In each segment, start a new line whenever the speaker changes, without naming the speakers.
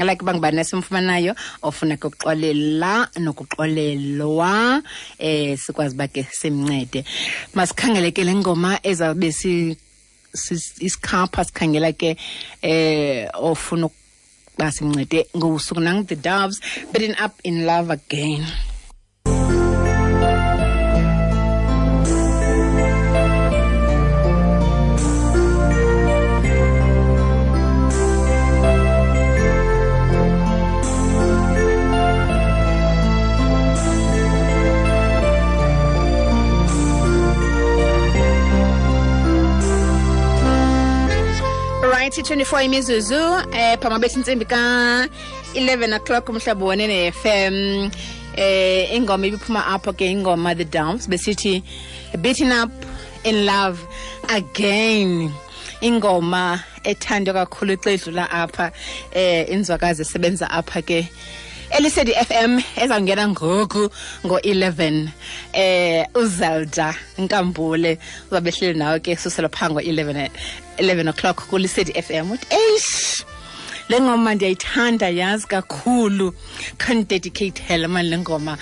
Like uba ngubani esimfumanayo ofuna ke ukuxolela nokuxolelwa, sikwazi uba ke simncede. Masikhangele ke le ngoma ezawube isikhapha, sikhangela ke ofuna ukuba simncede ngosuku nang The Doves, Beating Up in Love Again. Right, 24 imizuzu phama bethi intsimbi ka 11 o'clock umhlobo wenene FM. Ingoma ibiphuma apho ke, ingoma The Doves, besithi Beating Up in Love Again. Ingoma ethandwa kakhulu xa idlula apha, inzwakazi esebenza apha ke Elisedi FM ezawungena ngoku ngo-11, uZelda Nkambule uzabe ehleli nawe ke susela phaa ngo-11, 11 o'clock kuLisedi FM. Uthi eish, le ngoma ndiyayithanda yazi kakhulu, khandidedicate mani le ngoma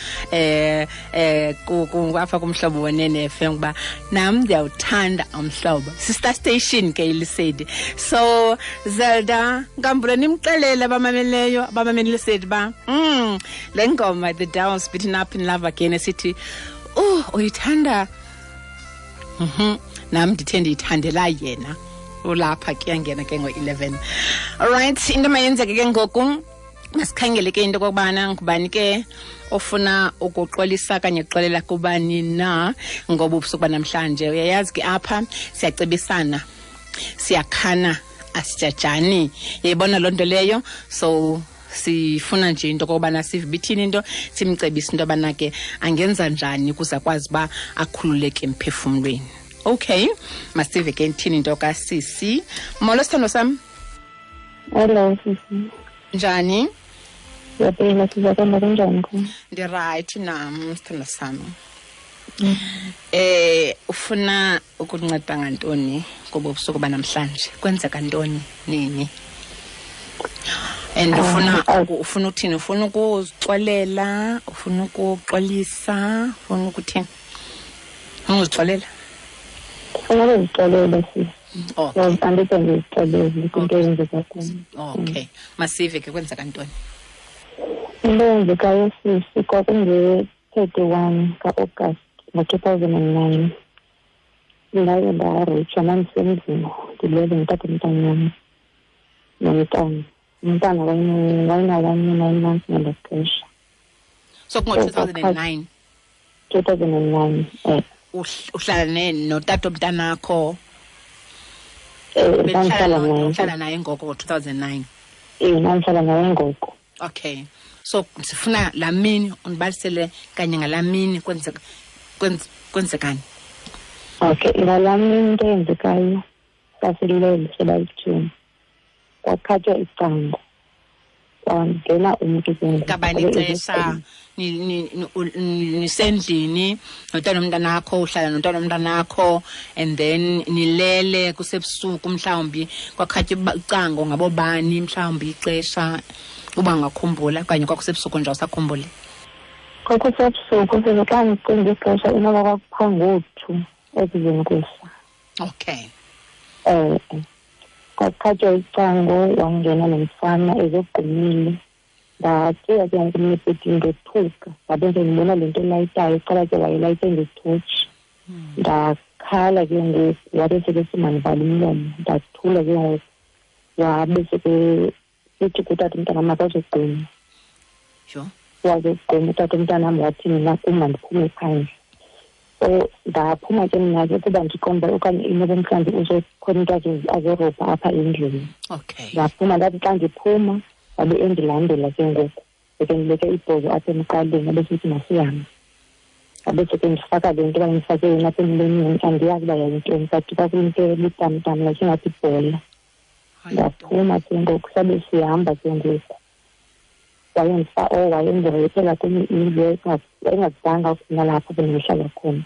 apha kumhlobo wenene FM, kuba nam ndiyawuthanda umhlobo. Sister station ke iLisedi. So Zelda Nkambule, nimxelele abamameleyo, abamamele iLisedi ba le ngoma The Doves Beating Up in Love Again esithi uyithanda. Nam ndithe ndiyithandela yena. Ulapha ke yangena ke ngo-11. Alright, into mayenzeke ke ngoku, masikhangele ke into okokubana ngubani ke ofuna ukuxolisa kanye kuxolela kubani na ngoba ubusuku banamhlanje. Uyayazi ke apha siyacebisana, siyakhana, asijajani. Uyayibona loo nto leyo? So sifuna nje into okokubana sive ibithini into, simcebise into yobana ke angenza njani ukuze akwazi uba akhululeke emphefumlweni. Okay, masive ke ithini into kasisi. Molo sithando sam.
Hello sisi.
Njani?
Siyaphila, sizakwamba kunjani khona?
Ndirayithi nam sithando sam. Ufuna ukunceda ngantoni ngobu busuku banamhlanje? Kwenzeka ntoni nini? And ufuna uthini? Ufuna ukuzixolela? Ufuna ukuxolisa? Ufuna ukuthini? Ufuna ukuzixolela?
Ufuna ukuzixolela sisi.
Okay.
Andide ndizixolele kwinto eyenzeka kum.
Okay. Masive ke kwenzeka ntoni?
Into eyenzekayo sisi kwakunge-31 ka-August ngo-2009. Ndaye ndareyitshwa, ndandisendlini ndilele ndithatha umntanam nomntana. Umntana wayena-1 year 9 months ngelo xesha.
So kungo-2009?
2009, eh.
Uhlala notata omntanakho?
Ndandihlala naye.
Uhlala naye ngoko ngo-2009?
Ndandihlala naye ngoko.
Okay. So sifuna laa mini undibalisele kanye ngalaa mini kwenzekani?
Okay, ngalaa mini into eyenzekayo sasilele sebayithini. Kwakhatywa icango. Kwangena umntu ke ngoku.
Ngabani ixesha nisendlini notata nomntanakho, uhlala notata nomntanakho, and then nilele kusebusuku mhlawumbi kwakhatywa icango ngabobani mhlawumbi ixesha uba ungakhumbula okanye kwakusebusuku nje awusakhumbuli?
Kwakusebusuku, sele xa ndicinga ixesha inoba kwakupha ngo-2 ekuzeni kusa.
Okay.
Kwakhatywa icango wangena lo mfana ezogqumile. Ndacinga ke ngoku mna ebhedini ndothuka, ndabe sendibona le nto elayitayo, iqala ke wayelayite ngetotshi. Ndakhala ke ngoku, wabe sekesithi mandivale umlomo. Ndathula ke ngoku, wabe sekesithi kutata umntanam makazogquma. Wazogquma utata umntanam, wathi mna kum mandiphume phandle. So ndaphuma ke mna ke kuba ndiqonda uba okanye inoba mhlawumbi uzokhona into azorobha apha endlini.
Okay.
Ndaphuma, ndathi xa ndiphuma wabe endilandela ke ngoku. Beke ndibeke ibhozo apha emqaleni, abe sithi masihambe. Abe seke ndifaka le nto bayindifake yona apha emlonyeni, andiyazi uba yayintoni, but kwakuyinto ebutamtam like ingathi ibhola. Ndaphuma ke ngoku, sabe sihamba ke ngoku. Wayendireyithela kwenye indlu, wayengazanga nalapho bendihlala khona.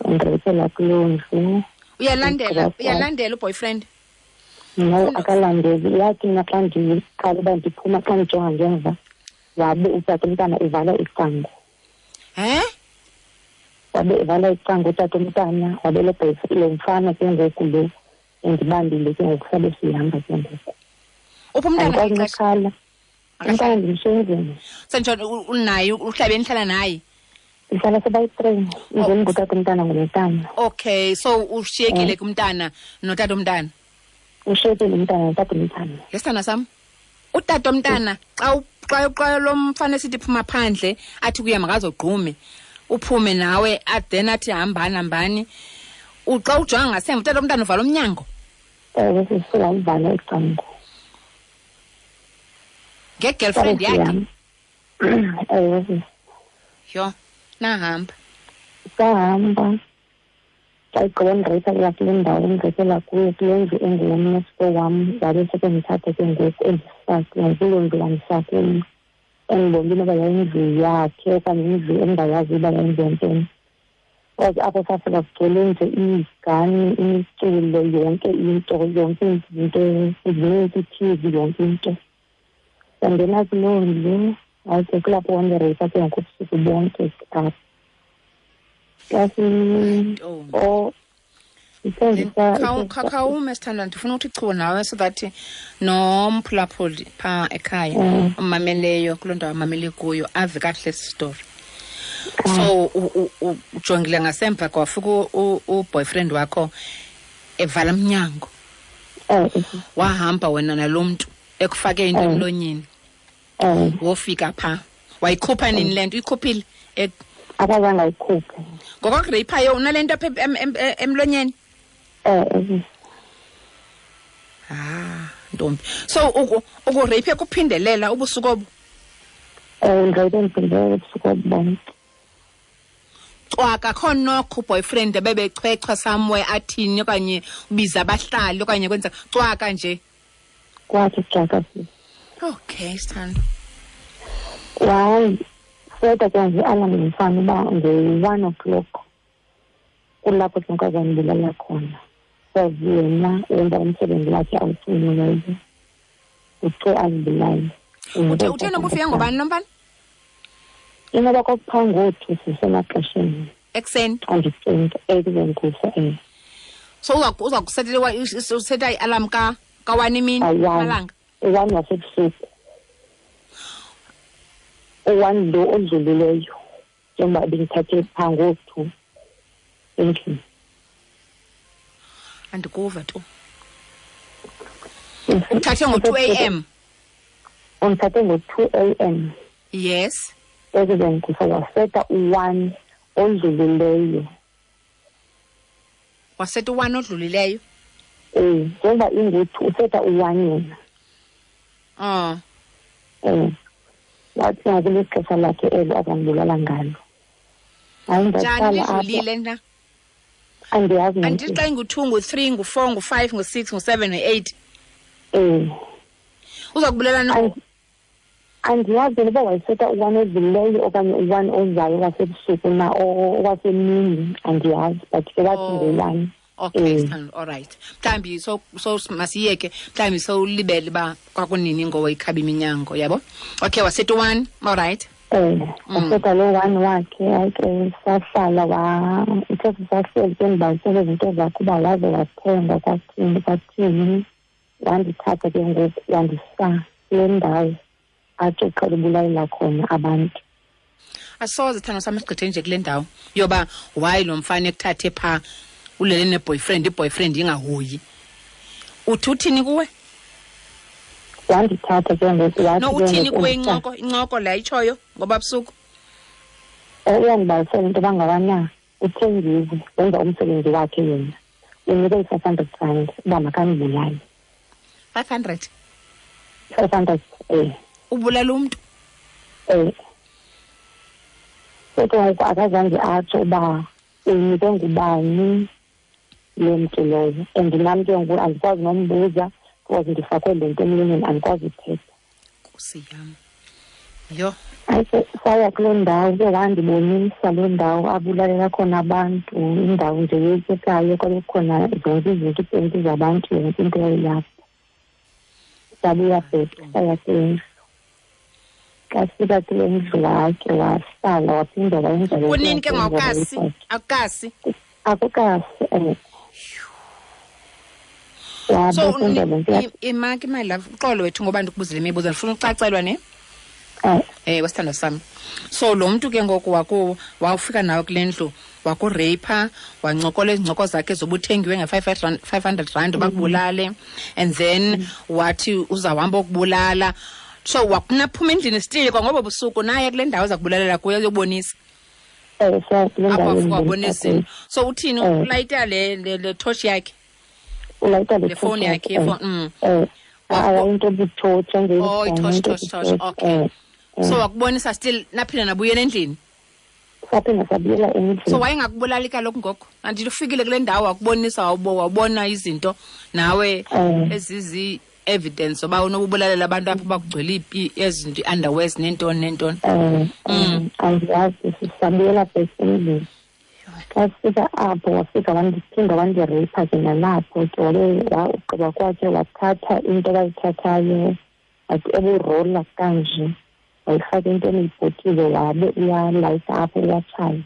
Wandireyithela kuloo ndlu.
Uyalandela uboyfriend?
No, akalandeli. Yathi mna xa ndiqala uba ndiphuma, xa ndijonga ngemva, wabe utata umntana evala icango.
He?
Wabe evala icango utata umntana, wabe lo mfana ke ngoku lo endibambile ke ngoku, sabe sihamba ke ngoku.
Uphi umntana?
Andikwazi. Umntana ndimsenzini.
Senjani unaye, uhlabe nihlala naye?
Ndihlala sebayi-3, ndim ngutata umntana ngumntana.
Okay, so ushiyekile kumntana notata umntana?
Ushiyekile umntana notata umntana.
Yesithanda sam, utata umntana xa lo mfana esithi phuma phandle, athi kuye makazogqume, uphume nawe, then athi hambani hambani. Xa ujonga ngasemva, utata umntana uvala umnyango?
Ewe, sisuka uvala icango.
Nge-girlfriend yakhe?
Ewe.
Yho, nahamba.
Sahamba. Xa igqiba ndireyipha kuya kule ndawo ndireyipela kuyo, kule ndlu engulomnesiko wam, wabe sekendithatha ke ngoku endisa kuloo ndlu wandisa kuyo. Endibona inoba yayindlu yakhe okanye indlu engingayazi uba yayindlu yantoni. Kwaze apho safika kugcwele nje iigani, imiculo, yonke into, yonke into, zininzi i-T V, yonke into. Sangena kuloo ndlu, hayi ke kulapho wandireyipha ke ngoku ubusuku bonke apho.
Khawume sithandwa, ndifuna ukuthi chu nawe so that nomphulaphuli phaa ekhaya umameleyo kuloo ndawo amamele kuyo ave kakuhle esi story. So ujongile ngasemva kwafika uboyfriend wakho evala umnyango. Wahamba wena nalo mntu ekufake into emlonyeni. Wofika phaa. Wayikhupha nini le nto? Uyikhuphile?
Akazange ayikhuphe.
Ngokokureyiphayo unale nto apha emlonyeni? Ah, ntombi. So ukureyiphe kuphindelela ubusuku obu?
Ndireyiphe ndiphindelela ubusuku obu bonke.
Cwaka akho nokho uboyfriend ebebechwechwa somewhere athini okanye ubiza abahlali okanye kwenza cwaka nje?
Kwathi cwaka.
Okay, sithando.
Wayi, seta ke nje alarm ngomfana uba ngo-1 o'clock kulapho ke nkazanibulala khona. Sazi yena wenza umsebenzi wakhe awucinileyo, uthe azibulale.
Uthe noba ufike ngobani lo mfana?
Inoba kwakuphaa ngothu sisemaxesheni.
Ekuseni?
Xa ndicinga, ekuseni kusa, eh.
So uza kusetela useta i-alarm ka-1 imini amalanga?
U-1 wasebusuku. U-1 lo odlulileyo, njengoba bendithathe phaa ngothu endlini.
Andikuva tu. Uthathe ngo-2 a.m.?
Undithathe ngo-2 a.m.
Yes.
Ekuseni kusa waseta u-1 odlulileyo.
Waseta u-1 odlulileyo?
Njengoba ingu-2, useta u-1 yena. Wathi ngoku lixesha lakhe elo azandibulala ngalo. Hayi,
Njani
ndaqala apho.
lidlulile na?
Andiyazi nam.
Andithi xa ingu-2, ngu-3, ngu-4, ngu-5, ngu-6, ngu-7, ngu-8. Uza kubulala no?
Andiyazi noba wayeseta u-1 odlulileyo okanye u-1 ozayo wasebusuku na owasemini, andiyazi, but ke wathi ngu-1.
Okay, sithando, all right. Mhlawumbi so masiyeke, mhlawumbi sowulibele uba kwakunini ngowayikhaba iminyango, yabo? Okay, waseta u-1, all right.
Waseta lo 1 wakhe, hayi ke sahlala ithe sisahleli ke ndibalisele izinto zakhe uba waze wathenga kwathini, kwathini. Wandithatha ke ngoku wandisa kule ndawo athi uqhela ubulalela khona abantu.
Asoze sithando sam sigqithe nje kule ndawo yoba why lo mfana ekuthathe phaa ulele ne-boyfriend, i-boyfriend ingahoyi. Uthi uthini kuwe?
Wandithatha ke ngoku wathi
No,
ke
uthini
ngoku
kuwe
undithatha.
incoko le ayitshoyo ngoba busuku?
Uyandibalisela into yoba ngabana uthengiwe, wenza umsebenzi wakhe yena. Unike i-500 rand uba makandibulale.
500?
500, eh.
Ubulala umntu?
So ke ngoku akazange atsho uba unikwe ngubani lo mntu lowo. And nam ke ngoku andikwazi nombuza because ndifakwe le nto emlonyeni, andikwazi uthetha.
Nkosi yam. Yho.
Hayi, saya kuloo ndawo ke, wandibonisa loo ndawo abulalela khona abantu, indawo nje yoyikekayo, kwabe kukhona zonke izinto, iipenti zabantu, yonke into yayilapho. Sabuya back, saya kule ndlu. Xa sifika kule ndlu wakhe wahlala, waphinda wayenza le
Kunini ke ngawukasi? Akukasi?
Akukasi,
So imaki, my love, uxolo wethu ngoba ndikubuzile imibuzo, ndifuna ucacelwa ne? Wesithandwa sami. So lo mntu ke ngoku wawufika nawe kule ndlu, wakureyipha, wancokola izincoko zakhe zobuthengiwe nge-500 rand bakubulale, and then wathi uzawuhamba ukubulala. So wakunaphuma endlini still kwangobo busuku naye kule ndawo zakubulalela kuyo uyobonisa.
Apho
wabonisa. So uthini, ulayita le torch yakhe?
Ulayita
le phone yakhe,
phone. Into ebutotshi.
Oh, i-torch, okay. So wakubonisa still, naphinda nabuyela endlini?
Saphinda sabuyela endlini.
So wayengakubulali kaloku ngoku? Andithi ufikile kule ndawo wakubonisa, wabona izinto nawe ezizi evidence oba unokubulalela abantu apho bakugcwele ezinto, i-underwears nentoni nentoni.
Andiyazi, sisabuyela back endlini. Xa sifika apho wafika wandiphinda wandireyipha ke nalapho ke, wabe ugqiba kwakhe wathatha into abayithathayo, wathi eburola kanje, wayifaka into eniyibhotile, wabe uyalayita apho uyatshaya.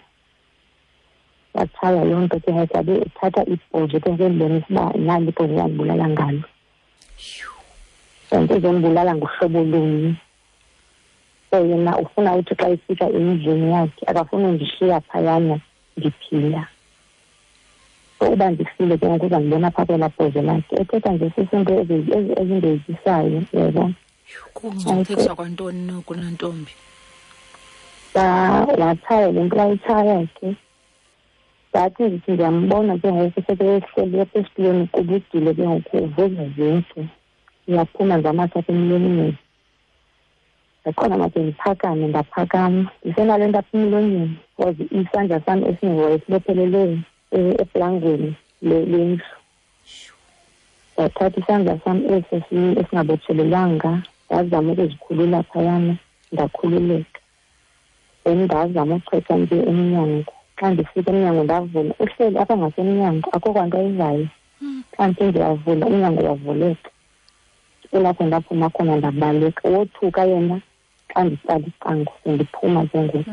Watshaya loo nto ke ngoku, wabe ethatha ibhozo ke ngoku endibonisa uba nali ibhozo uyandibulala ngalo. And uzondibulala ngohlobo lunye. So yena ufuna uthi xa efika endlini yakhe akafuni undishiya phayana ndiphila. So uba ndifile ke ngoku uzandibona phaa kwelaa bhozo lakhe. Ethetha nje sisinto ezindoyikisayo, uyayibona.
Kungcungcuthekiswa kwantoni noku nantombi?
Watshaya le nto wayitshaya ke. Ndathi ndithi ndiyambona ke ngoku sekehleli apha esitulweni uqubudile ke ngoku, uvuza zintsu. Uyaphuma nje amathe apha emlonyeni. Ndakhona make ndiphakame, ndaphakama. Ndisenale nto apha emlonyeni because isandla sam esingoye sibophelele eplangweni lendlu. Ndathatha isandla sam eso esingabotshelelwanga, ndazama ukuzikhulula phayana, ndakhululeka. Then ndazama uchetha nje emnyango. Xa ndifika emnyango ndavula, uhleli apha ngasemnyango, akho kwanto ayivayo. Xa ndithe ndiyavula, umnyango wavuleka. Kulapho ndaphuma khona ndabaleka. Wothuka yena xa nditsala icango, sendiphuma ke ngoku.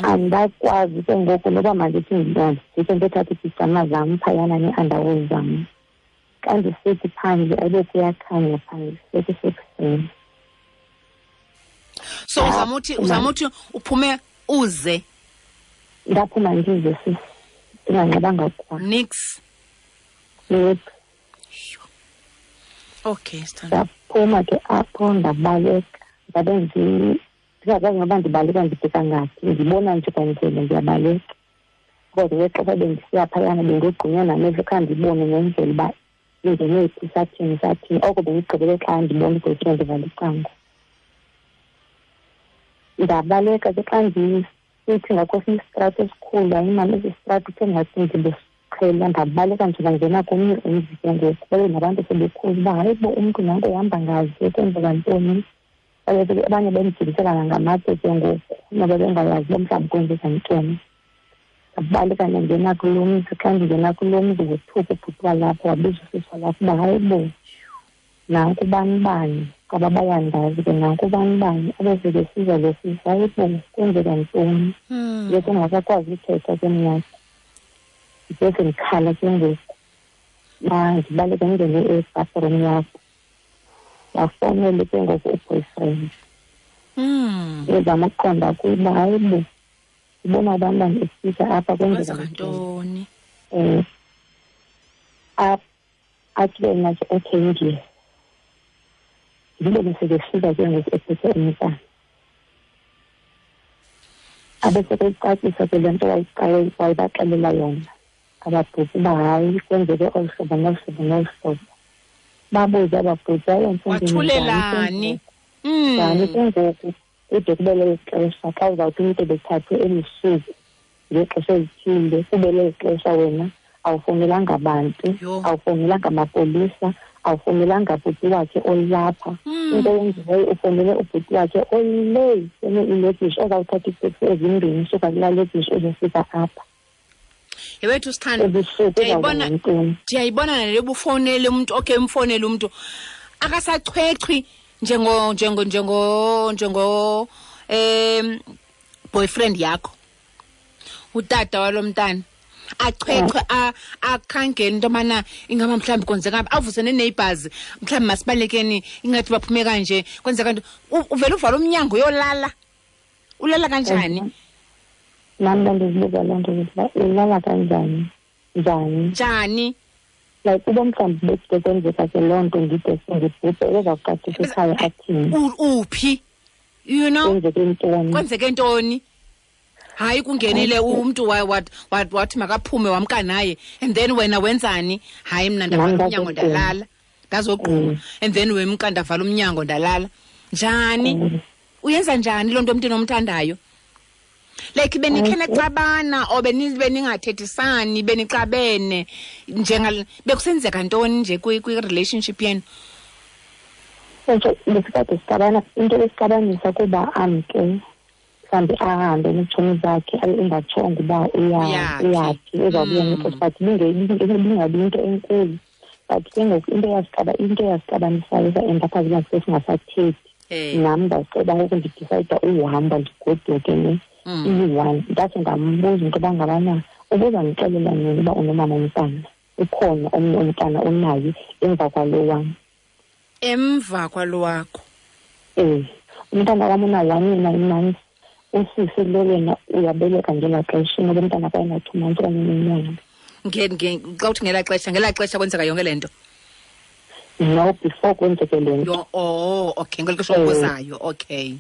Andakwazi ke ngoku noba mandithi ndijike ndiyothatha iipijama zam phayana nee-underwear zam. Xa ndisithi phandle ayibe kuyakhanya phandle, sekusekuseni.
So uzama uthi uphume uze?
Ndaphuma ndize sisi, ndinganxibanga kwa.
Nix?
Nix.
Okay, sithanda.
Ndaphuma ke apho ndabaleka. Ndabe ndingakwazi noba ndibaleka ndibheka ngaphi, ndibona nje kwandlela ndiyabaleka. Kodwa ngexesha bendisiya phayana bendogqunywa namehlo, khange ndibone nendlela uba ingene phi, sathini sathini. Oko bendigqibele xa ndibona i-boyfriend ivala icango. Ndabaleka ke xa ndisithi ngakwesinye isitrato esikhulu, hayi mani esi sitrato kuthe ngathi ndibesiqhela. Ndabaleka nje ndangena komnye umzi ke ngoku, babe nabantu sebekhulu uba hayi bo umntu nanto uhamba ngazi kwenzeka ntoni. Abanye bendijibisela nangamatye ke ngoku noba bengayazi uba mhlawumbi kwenzeka ntoni. Ndabaleka ndangena kulo mzi. Xa ndingena kulo mzi wothuka ubhuti walapho, wabiza usisi walapho uba hayi bo nanku bani bani, kwaba bayandazi ke nanku bani bani. Abe sekesiza lo sisi, hayi bo kwenzeka ntoni. Ndiye ndingasakwazi uthetha ke mna, ndiye sendikhala ke ngoku. Ndibaleke ndingene ebathroom yakho, bafowunele ke ngoku u-boyfriend. Ndizama ukuqonda kuye uba hayi bo ndibona abantwana efika apha kwenzeka
ntoni.
Athi ke mna ke okay ndiye. Ndibone sekefika ke ngoku ephethe umntana. Abe sekeyicacisa ke le nto wayibaxelela yona ababhuti uba hayi kwenzeke olu hlobo nolu hlobo nolu hlobo. Babuze ababhuti, hayi
wathulelani
njani ke ngoku kude kube leli xesha xa uzawuthi umntu ebethathwe elusuku ngexesha elithile, kube leli xesha wena awufowunelanga bantu, awufowunelanga mapolisa, awufowunelanga bhuti wakhe olapha. Into eyenziweyo ufowunele ubhuti wakhe oley kwenye ilokishi ozawuthatha iiteksi ezimbini usuka kulaa lokishi uzofika apha.
Yewethu sithando, ndiyayibona nale ubufowunele umntu, okay umfowunele umntu. Akasachwechwi njengo njengo njengo njengo boyfriend yakho, utata walomntana achwechwe, akhangele into yobana ingaba mhlawumbi kwenzeka, avuse nee-neighbors, mhlawumbi masibalekeni, ingathi baphume kanje, kwenzeka nto. Uvele uvala umnyango uyolala. Ulala kanjani?
Nam ndandizibuza loo nto, uba ulala kanjani, njani?
Njani?
Like uba mhlawumbi bekude kwenzeka ke loo nto, ndide sendibhubhe, ebezawuqaqisa ekhaya athini?
Uphi? You know?
Kwenzeke ntoni?
Kwenzeke ntoni? Hayi, kungenile umntu wathi makaphume, wamka naye, and then wena wenzani? Hayi, mna ndavala umnyango ndalala, ndazogquma, and then wemka, ndavala umnyango ndalala. Njani? Uyenza njani loo nto emntwini omthandayo? Like benikhe naxabana or beningathethisani, benixabene, njenga bekusenzeka ntoni nje kwi-relationship yenu?
So besikade sixabana, into besixabanisa kuba amke mhlawumbi ahambe neetshomi zakhe, abe engatshongo uba uyaphi, uzawubuya ngexesha, but ibingabi into enkulu. But ke ngoku into eyasixabanisayo sa-end-apha sesingasathethi. Nam ndaceba ngoku ndidicayida uhamba ndigoduke ne iyi-one. Ndathi ndambuza into yoba ngabana ubuzandixelela nini uba unomama umntana, ukhona omnye umntana onaye emva kwalo wam.
Emva kwalo wakho?
Umntana wam una-1 year 9 months, usisi lo yena uyabeleka ngelaa xesha, inoba umntana kwaye na-2 months okanye unenyanga.
Xa uthi ngelaa xesha, ngelaa xesha kwenzeka yonke le nto?
No, before kwenzeke le nto.
Oh, okay, ngeli xesha okuzayo, okay.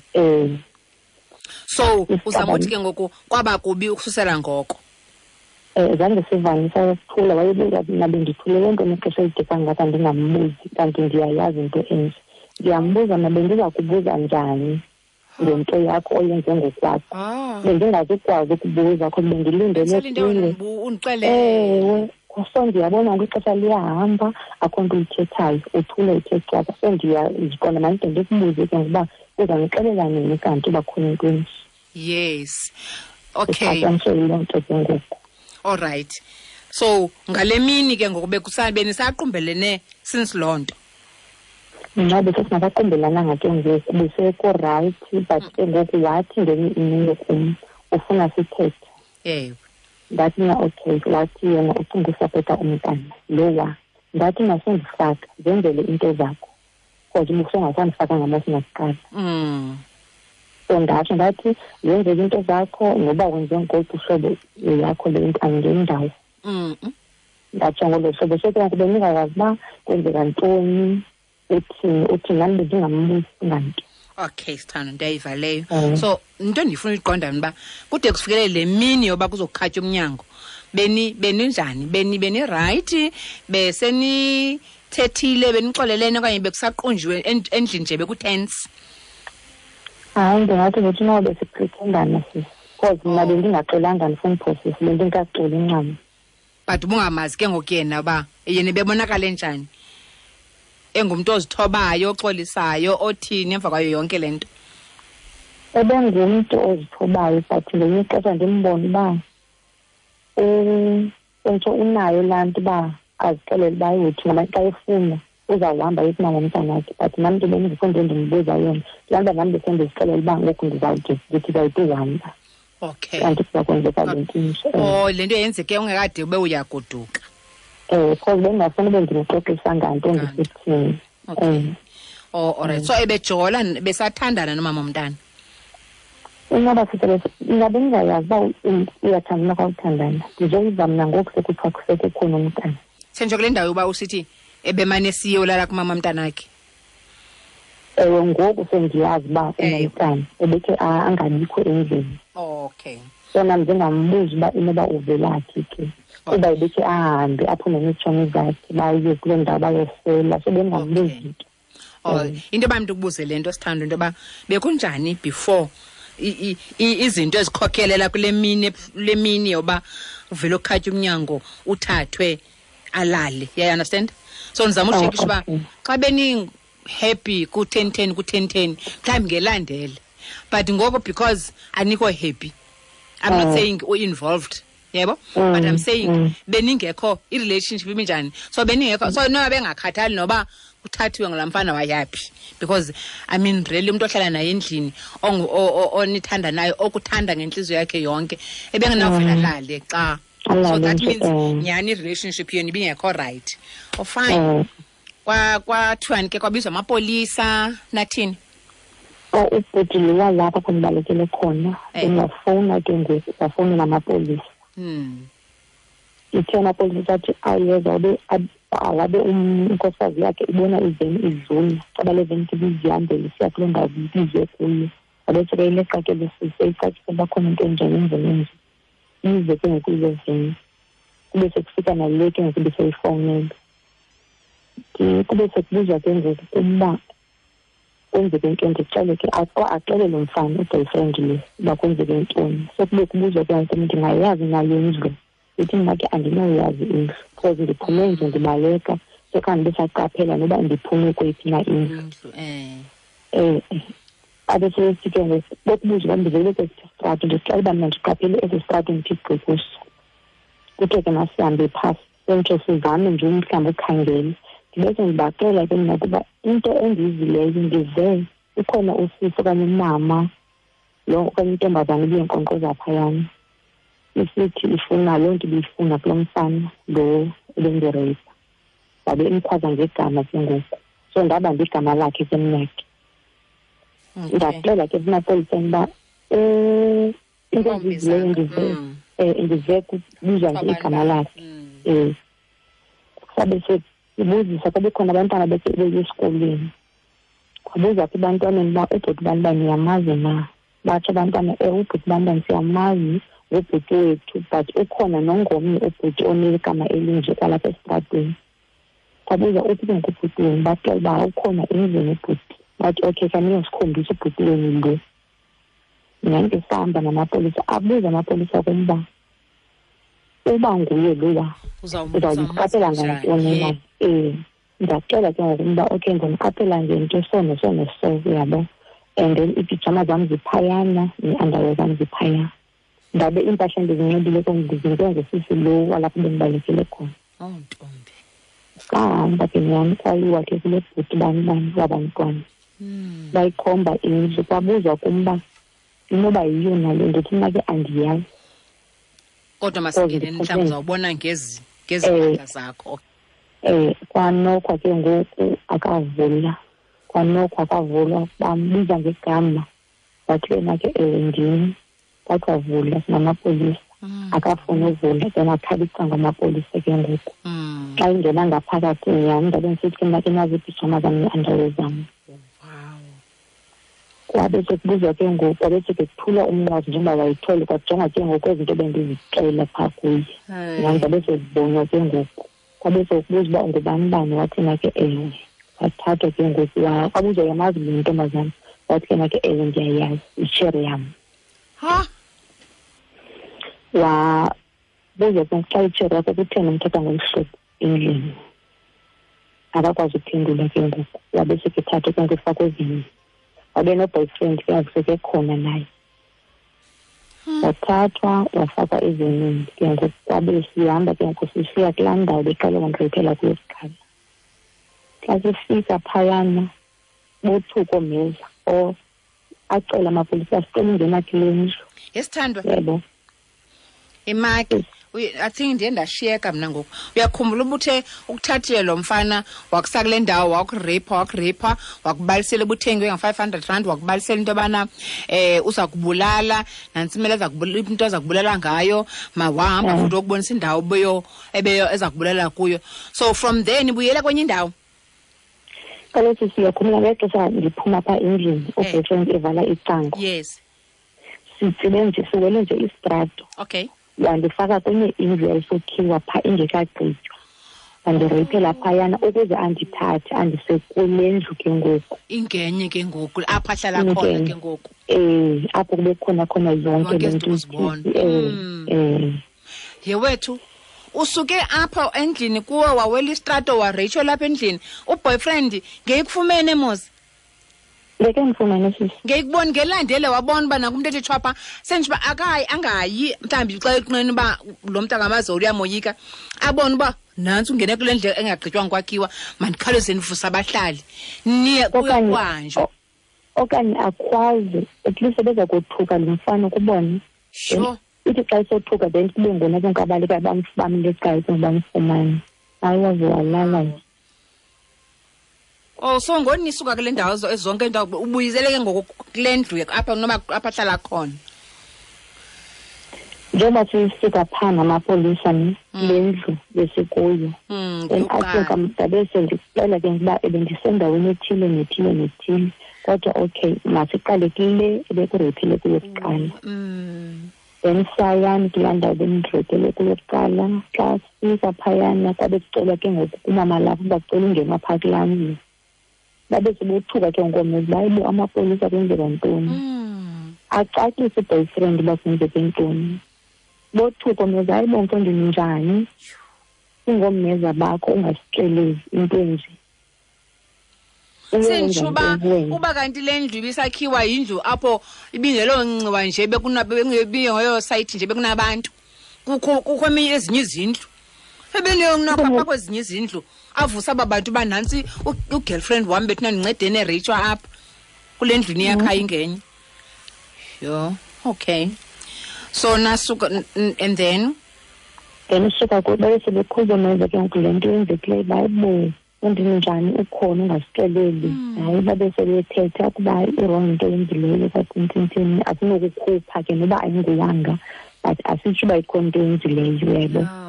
So uzama uthi ke ngoku kwaba kubi ukususela ngoko?
Zange sivane, sathula, wayebuza mna bendithulele ntoni ixesha elide kangaka ndingambuzi, kanti ndiyayazi into enje. Ndiyambuza mna bendiza kubuza njani ngento yakho oyenze ngokwakho? Bendingazukwazi ukubuza because bendilindele kuwe.
Undixelele.
Ewe, so ndiyabona ngoku ixesha liyahamba, akho nto uyithethayo, uthule uthe cwaka. So ndiyaziqonda mandide ndikubuze ke ngokuba uzandixelela nini kanti uba khona into enje.
Yes. Okay.
Ixatyiswe yiloo nto ke ngoku.
All right. So ngale mini ke ngoku benisaqhumbelene since loo nto?
Mna besesingakaqumbelanga ke ngoku, besekurayithi, but ke ngoku wathi ngenye imini kum ufuna sithethe. Ndathi mna okay, wathi yena ucinga usapota umntana lowa. Ndathi mna sendifaka, zenzele into zakho, because ubusongasandifaka ngamasingakuqala. So ndatsho ndathi zenzele into zakho, noba wenze ngoluphi uhlobo yakho le nto angeni ndawo. Ndatsho ngolo hlobo. So ke ngoku bendingayazi uba kwenzeka ntoni, uthini, nam bendingambuzi nganto.
Okay, sithando, ndiyayiva leyo. So into endifuna uyiqonda mna uba kude kufikelele le mini yoba kuzokukhatywa umnyango, beninjani? Benirayithi? Besenithethile, benixolelene, okanye bekusaqunjiwe endlini nje bekutense?
Hayi, ndingathi ngothi noba besipretendana sisi, because mna bendingaxolanga, ndifuna uphosisa, bendingekaxoli ncam.
But ubungamazi ke ngoku yena uba yena ebebonakala enjani? Engumntu ozithobayo, oxolisayo, othini emva kwayo yonke le nto?
Ebengumntu ozithobayo, but ngelinye ixesha ndimbone uba entsho unayo laa nto uba azixelele uba uthi ngoba xa efuna uzawuhamba aye kumama womntanakhe, but nam ke bendingekho nto endimbuza yona. Laa nto nam besendizixelela uba ngoku ndizawude ndithi ndizawude uhamba.
Okay.
Kanti kuza kwenzeka le nto inje.
Oh, le nto yenzeke ungekade ube uyagoduka.
Because bendingafuni ube ndimxoxisa nganto ndisithini.
Okay. Oh, all right. So ebejola, besathandana nomama womntana?
Ingaba sithe ingabe ndingayazi uba uyathandana okanye awuthandana. Ndizoyiva mna ngoku sekuthiwa sekukhona umntana.
Senje kule ndawo yoba usithi ebemane siye ulala kumama mntanakhe?
Ewe, ngoku sendiyazi uba unomntana, ebekhe angabikho endlini.
Okay.
So nam ndingambuzi uba inoba uvelaphi ke. Kuba ebekhe ahambe aphume neetshomi zakhe baye kuloo ndawo bayosela, so bendingambuzi nto.
Oh, into yoba mntu ukubuze le nto sithando, into yoba bekunjani before izinto ezikhokhelela kule mini, le mini yoba uvele ukhatye umnyango uthathwe alale. Yeah, you understand? So ndizama utshekisha uba xa beni happy ku 10-10 ku 10-10 mhlawumbi ngelandele, but ngoku because anikho happy, I'm not saying u involved, yebo, but I'm saying beningekho, i-relationship iminjani, so beningekho, so noba bengakhathali noba Uthathiwe ngulaa mfana wayaphi? Because I mean, really, umntu ohlala naye endlini, onithanda naye, okuthanda ngentliziyo yakhe yonke, ebengenawuvela lale xa. So
Alale
that
nje,
means nyhani i-relationship yenu ibingekho right. Oh, fine. Kwathiwani ke, kwabizwa amapolisa, nathini?
Oh, ubhuti lo walapha apho ndibalekele khona, bengafowuna ke ngoku, wafowunela amapolisa. Ithe amapolisa athi ayeza, wabe inkosikazi yakhe ibona iveni idlula, caba le veni ke ibizihambela isiya kuloo ndawo ibizwe kuyo. Wabe seke ileqa ke le sisi, eyicacise uba khona into enjani endleleni enje. Ize ke ngoku ile veni. Kube sekufika nale ke ngoku ibiseyifowunele. Kube sekubuzwa ke ngoku ukuba kwenzeke ntoni, ndixele ke, axele lo mfana, u-boyfriend lo, uba kwenzeke ntoni. So kube kubuzwa ke ngoku, ndingayazi na le ndlu? Ndithi mna ke andinoyazi indlu, because ndiphume nje ndibaleka, so khange ndisaqaphela noba ndiphume kweyiphi na indlu.
Indlu.
Abe sesithi ke ngoku, bokubuzwa uba ndivele kwesi sitrato, ndixela uba mna ndiqaphele esi sitrato ndithi gqi kuso. Kuthe ke masihambe phasi, sentsho sizame nje umhlawumbi ukhangele. Ndibese ndibaxela ke mna ukuba into endiyivileyo, ndive ukhona usisi okanye umama lo okanye intombazana ibiyenkqonkqoza phayana, isithi ifuna loo nto ibiyifuna kulo mfana lo ebendireyipa. Wabe imkhwaza ngegama ke ngoku. So ndabamba igama lakhe ke mna ke. Ndaxela ke emapoliseni uba, into endiyivileyo ndive kubizwa nje igama lakhe. Sabe sibuzisa, kwabe khona abantwana beye esikolweni. Kwabuza ke ebantwaneni uba ubhuti bani bani niyamazi na? Batsho abantwana, ubhuti bani bani siyamazi, ngubhuti wethu, but ukhona nongomnye ubhuti onegama elinje kwalapha esitratweni. Kwabuza uphi ke ngoku ubhuti wenu? Baxela uba ukhona endlini ubhuti. Bathi okay, khaniyosikhombisa ubhuti wenu lo. Nyhani ke sahamba namapolisa, abuza amapolisa kum uba uba nguye lowa, uzawumqaphela ngantoni na? Ndaxela ke ngoku uba okay, ndimqaphela ngento so neso neso, uyabo. And then iipijama zam ziphayana, nee-underwear zam ziphaya. Ndabe iimpahla endizinxibile ke ndizinikwe ngusisi lo walapho bendibalekele khona.
Oh, ntombi.
Sahamba ke nyhani, kwayiwa ke kule bhuti bani bani wabantwana. Bayikhomba indlu, kwabuzwa kum uba inoba yiyo na le nto, ndithi mna ke andiyazi.
Kodwa masingene mhlawumbi uzawubona ngezi mpahla zakho.
Kwanokwa ke ngoku akavula. Kwanokwa akavula, bambiza ngegama. Wathi yena ke ewe ndim. Wathi wavula sinamapolisa. Akafuni uvula, then akhala icango amapolisa ke ngoku. Xa ingena ngaphakathi nyhani, ndabe ndisithi ke mna ke nazi iipijama zam nee-underwear zam. Kwabe sekubuzwa ke ngoku, kwabe sekuthulwa umnqwazi njengoba wayithwele, kwajongwa ke ngoku ezi zinto bendizixela phaa kuye. Nyhani ndabe sezibonwa ke ngoku. Kwabe sekubuzwa uba ungubani bani, wathi na ke ewe. Wathathwa ke ngoku, kwabuzwa uyamazi le ntombazana, wathi ke na ke ewe ndiyayazi, yitshere yam.
Ha?
Wabuza ke ngoku xa itshere yakho kutheni umthatha ngolu hlobo endlini. Akakwazi ukuphendula ke ngoku, wabe sekethathwa ke ngoku efakwe ezinye. Wabe no-boyfriend ke ngoku sekekhona naye. Wathathwa wafakwa ezinye ke ngoku, kwabe sihamba ke ngoku sisiya kulaa ndawo beqale wandireyphela kuyo kuqala. Xa sifika phayana bothuka oomeza, acela amapolisa asicela ungena kule ndlu.
Yesithandwa.
Yebo.
Imaki, I think ndiye ndashiyeka mna ngoku. Uyakhumbula uba uthe ukuthathile lo mfana wakusa kule ndawo, wakureyipha, wakureyipha, wakubalisela ubuthengwe nga-500 rand, wakubalisela into yobana, uza kubulala, nantsi imali into aza kubulala ngayo, mawahamba futhi wokubonisa indawo ebeyo eza kubulala kuyo. So from there nibuyela kwenye indawo?
Kaloku siyakhumbula ngexesha ndiphuma phaa endlini, uboyfriend evala icango. Sitsibe nje, siwele nje isitrato. Wandifaka kwenye indlu yayisokhiwa phaa ingekagqitywa. Wandireyiphela phayana ukuze andithathe andise kule ndlu ke ngoku.
Ingenye ke ngoku, apho ahlala khona
Ingenye.
ke ngoku.
Apho kube khona khona yonke
Yonke
le
izinto
nto
uzibona. Ye wethu, usuke apho endlini kuwe wawela isitrato wareyitsho lapha endlini. Uboyfriend ngeyikufumene mos?
Ngeke ndifumane sisi.
Ngeyikuboni ngelandele wabona uba nakumntu ethi tshwapha, senje uba akayi, angayi, mhlawumbi xa eqineni uba lo mntu akamazi uyamoyika, abone uba Nantsi ungene kule ndlela engagqitywanga kwakhiwa, mandikhawuleze ndivusa abahlali. Niye kuyokuhanjwa.
Okanye akhwaze, at least ebeza kothuka lo mfana ukubona.
Sure.
Ithi xa isothuka then kube ngona ke ngoku abaleka bamleqayo ke bamfumane. Hayi, waze walala nje.
Oh, so ngoni nisuka kule ndawo zonke indawo ubuyisele ke ngoku kule ndlu apha noma apha ahlala khona.
Njengoba sisuka phaa namapolisa ne le ndlu besikuyo. Then asuka ndabe sendixela ke ukuba ebendisendaweni ethile nethile nethile. Kodwa okay, masiqale kule ebekureyphile kuyo kuqala. Then sayani kulaa ndawo bendireyphele kuyo kuqala. Xa sifika phayana kwabe kucelwa ke ngoku kumama lapho uba kucela ungenwa phaa kulaa ndlu. Babe sebothuka ke ngoku uba hayibo amapolisa kwenzeka ntoni. Acacise i-boyfriend uba kwenzeke ntoni. Bothuka omeza, hayibo mfondini njani? Singoomeza bakho ungasixeleli into enje.
Senditsho uba uba kanti le ndlu ibisakhiwa yindlu apho ibingelonciwa nje, ibingeyo sayithi nje bekunabantu. Kukho eminye ezinye izindlu. Ebeneyonapha kwezinye izindlu. Avusa aba bantu uba nantsi u-girlfriend wam bethuna ndincedeni ereyitshwa apha kule ndlu niyakha ingenye. Yho, okay. So nasuka and then?
Then usuka kuyo, babe sebekhuza meza ke ngoku le nto yenzekileyo, bayibo undinjani ukhona ungasixeleli. Hayi, babe sebethetha ukuba i-wrong into eyenzileyo kwathintintini, asinokukhupha ke noba ayinguwanga, but asitsho uba ikhona into eyenzileyo, uyayibona.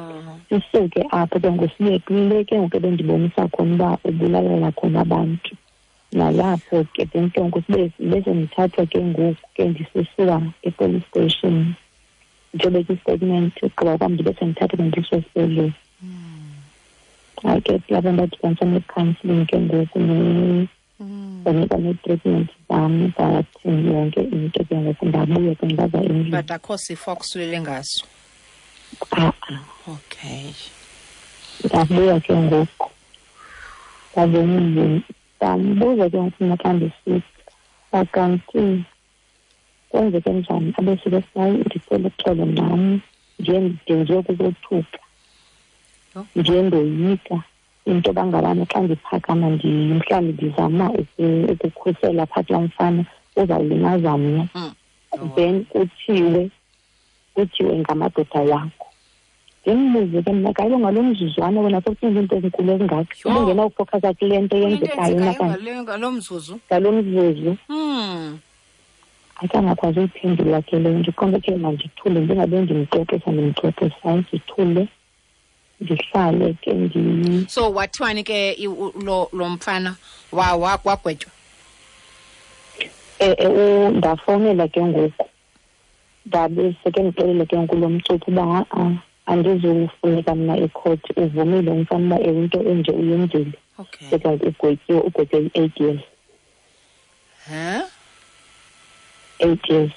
Sisuke apho ke ngoku siye kule ke ngoku ebendibonisa khona uba ubulalela khona abantu. Nalapho ke then ke ngoku bese ndithathwa ke ngoku ke ndisisiwa e-police station. Ndiyobeka i-statement, ugqiba kwam ndibe sendithathwa ke ndisiwe esibhedlele. Hayi ke kulapho ndadibanisa ne-counselling ke ngoku ndanikwa nee-treatment zam, zathini yonke into ke ngoku, ndabuya ke ndaza endlini.
But akho sifo akusulele ngaso?
A-a.
Okay.
Ndabuya ke ngoku ndaza endlini, ndambuza ke ngoku mna xa ndisika kanti kwenzeke njani, abe sike sayi ndicela uxolo nam, ndiye ndenziwe kukothuka. Ndiye ndoyika into yoba ngabana xa ndiphakama mhlawumbi ndizama ukukhusela phaa kulaa mfana uzawulimaza mna. Then kuthiwe ngamadoda wakho. Ndimbuze ke mna, kaloku ngalo mzuzwana wena sowucinga iinto ezinkulu ezingaka. Ubungenawufowukhasa kule nto yenzekayo
Into eyenzekayo ngalo mzuzu.
Ngalo mzuzu. Akangakwazi uyiphendula ke leyo. Ndiqonde ke mandithule, ndingabe ndimxoxisa, ndimxoxisa, hayi, ndithule. Ndihlale ke ndi-
So wathiwani ke lo mfana wagwetywa?
Ndafowunela ke ngoku. Ndabe seke ndixelele ke ngoku lo mcuphi uba ha-a, andizufuneka mna ekhoti, uvumile umfana uba ewe into enje uyenzile. Seke ugwetyiwe, ugwetywe i-8 years.
Huh?
8 years,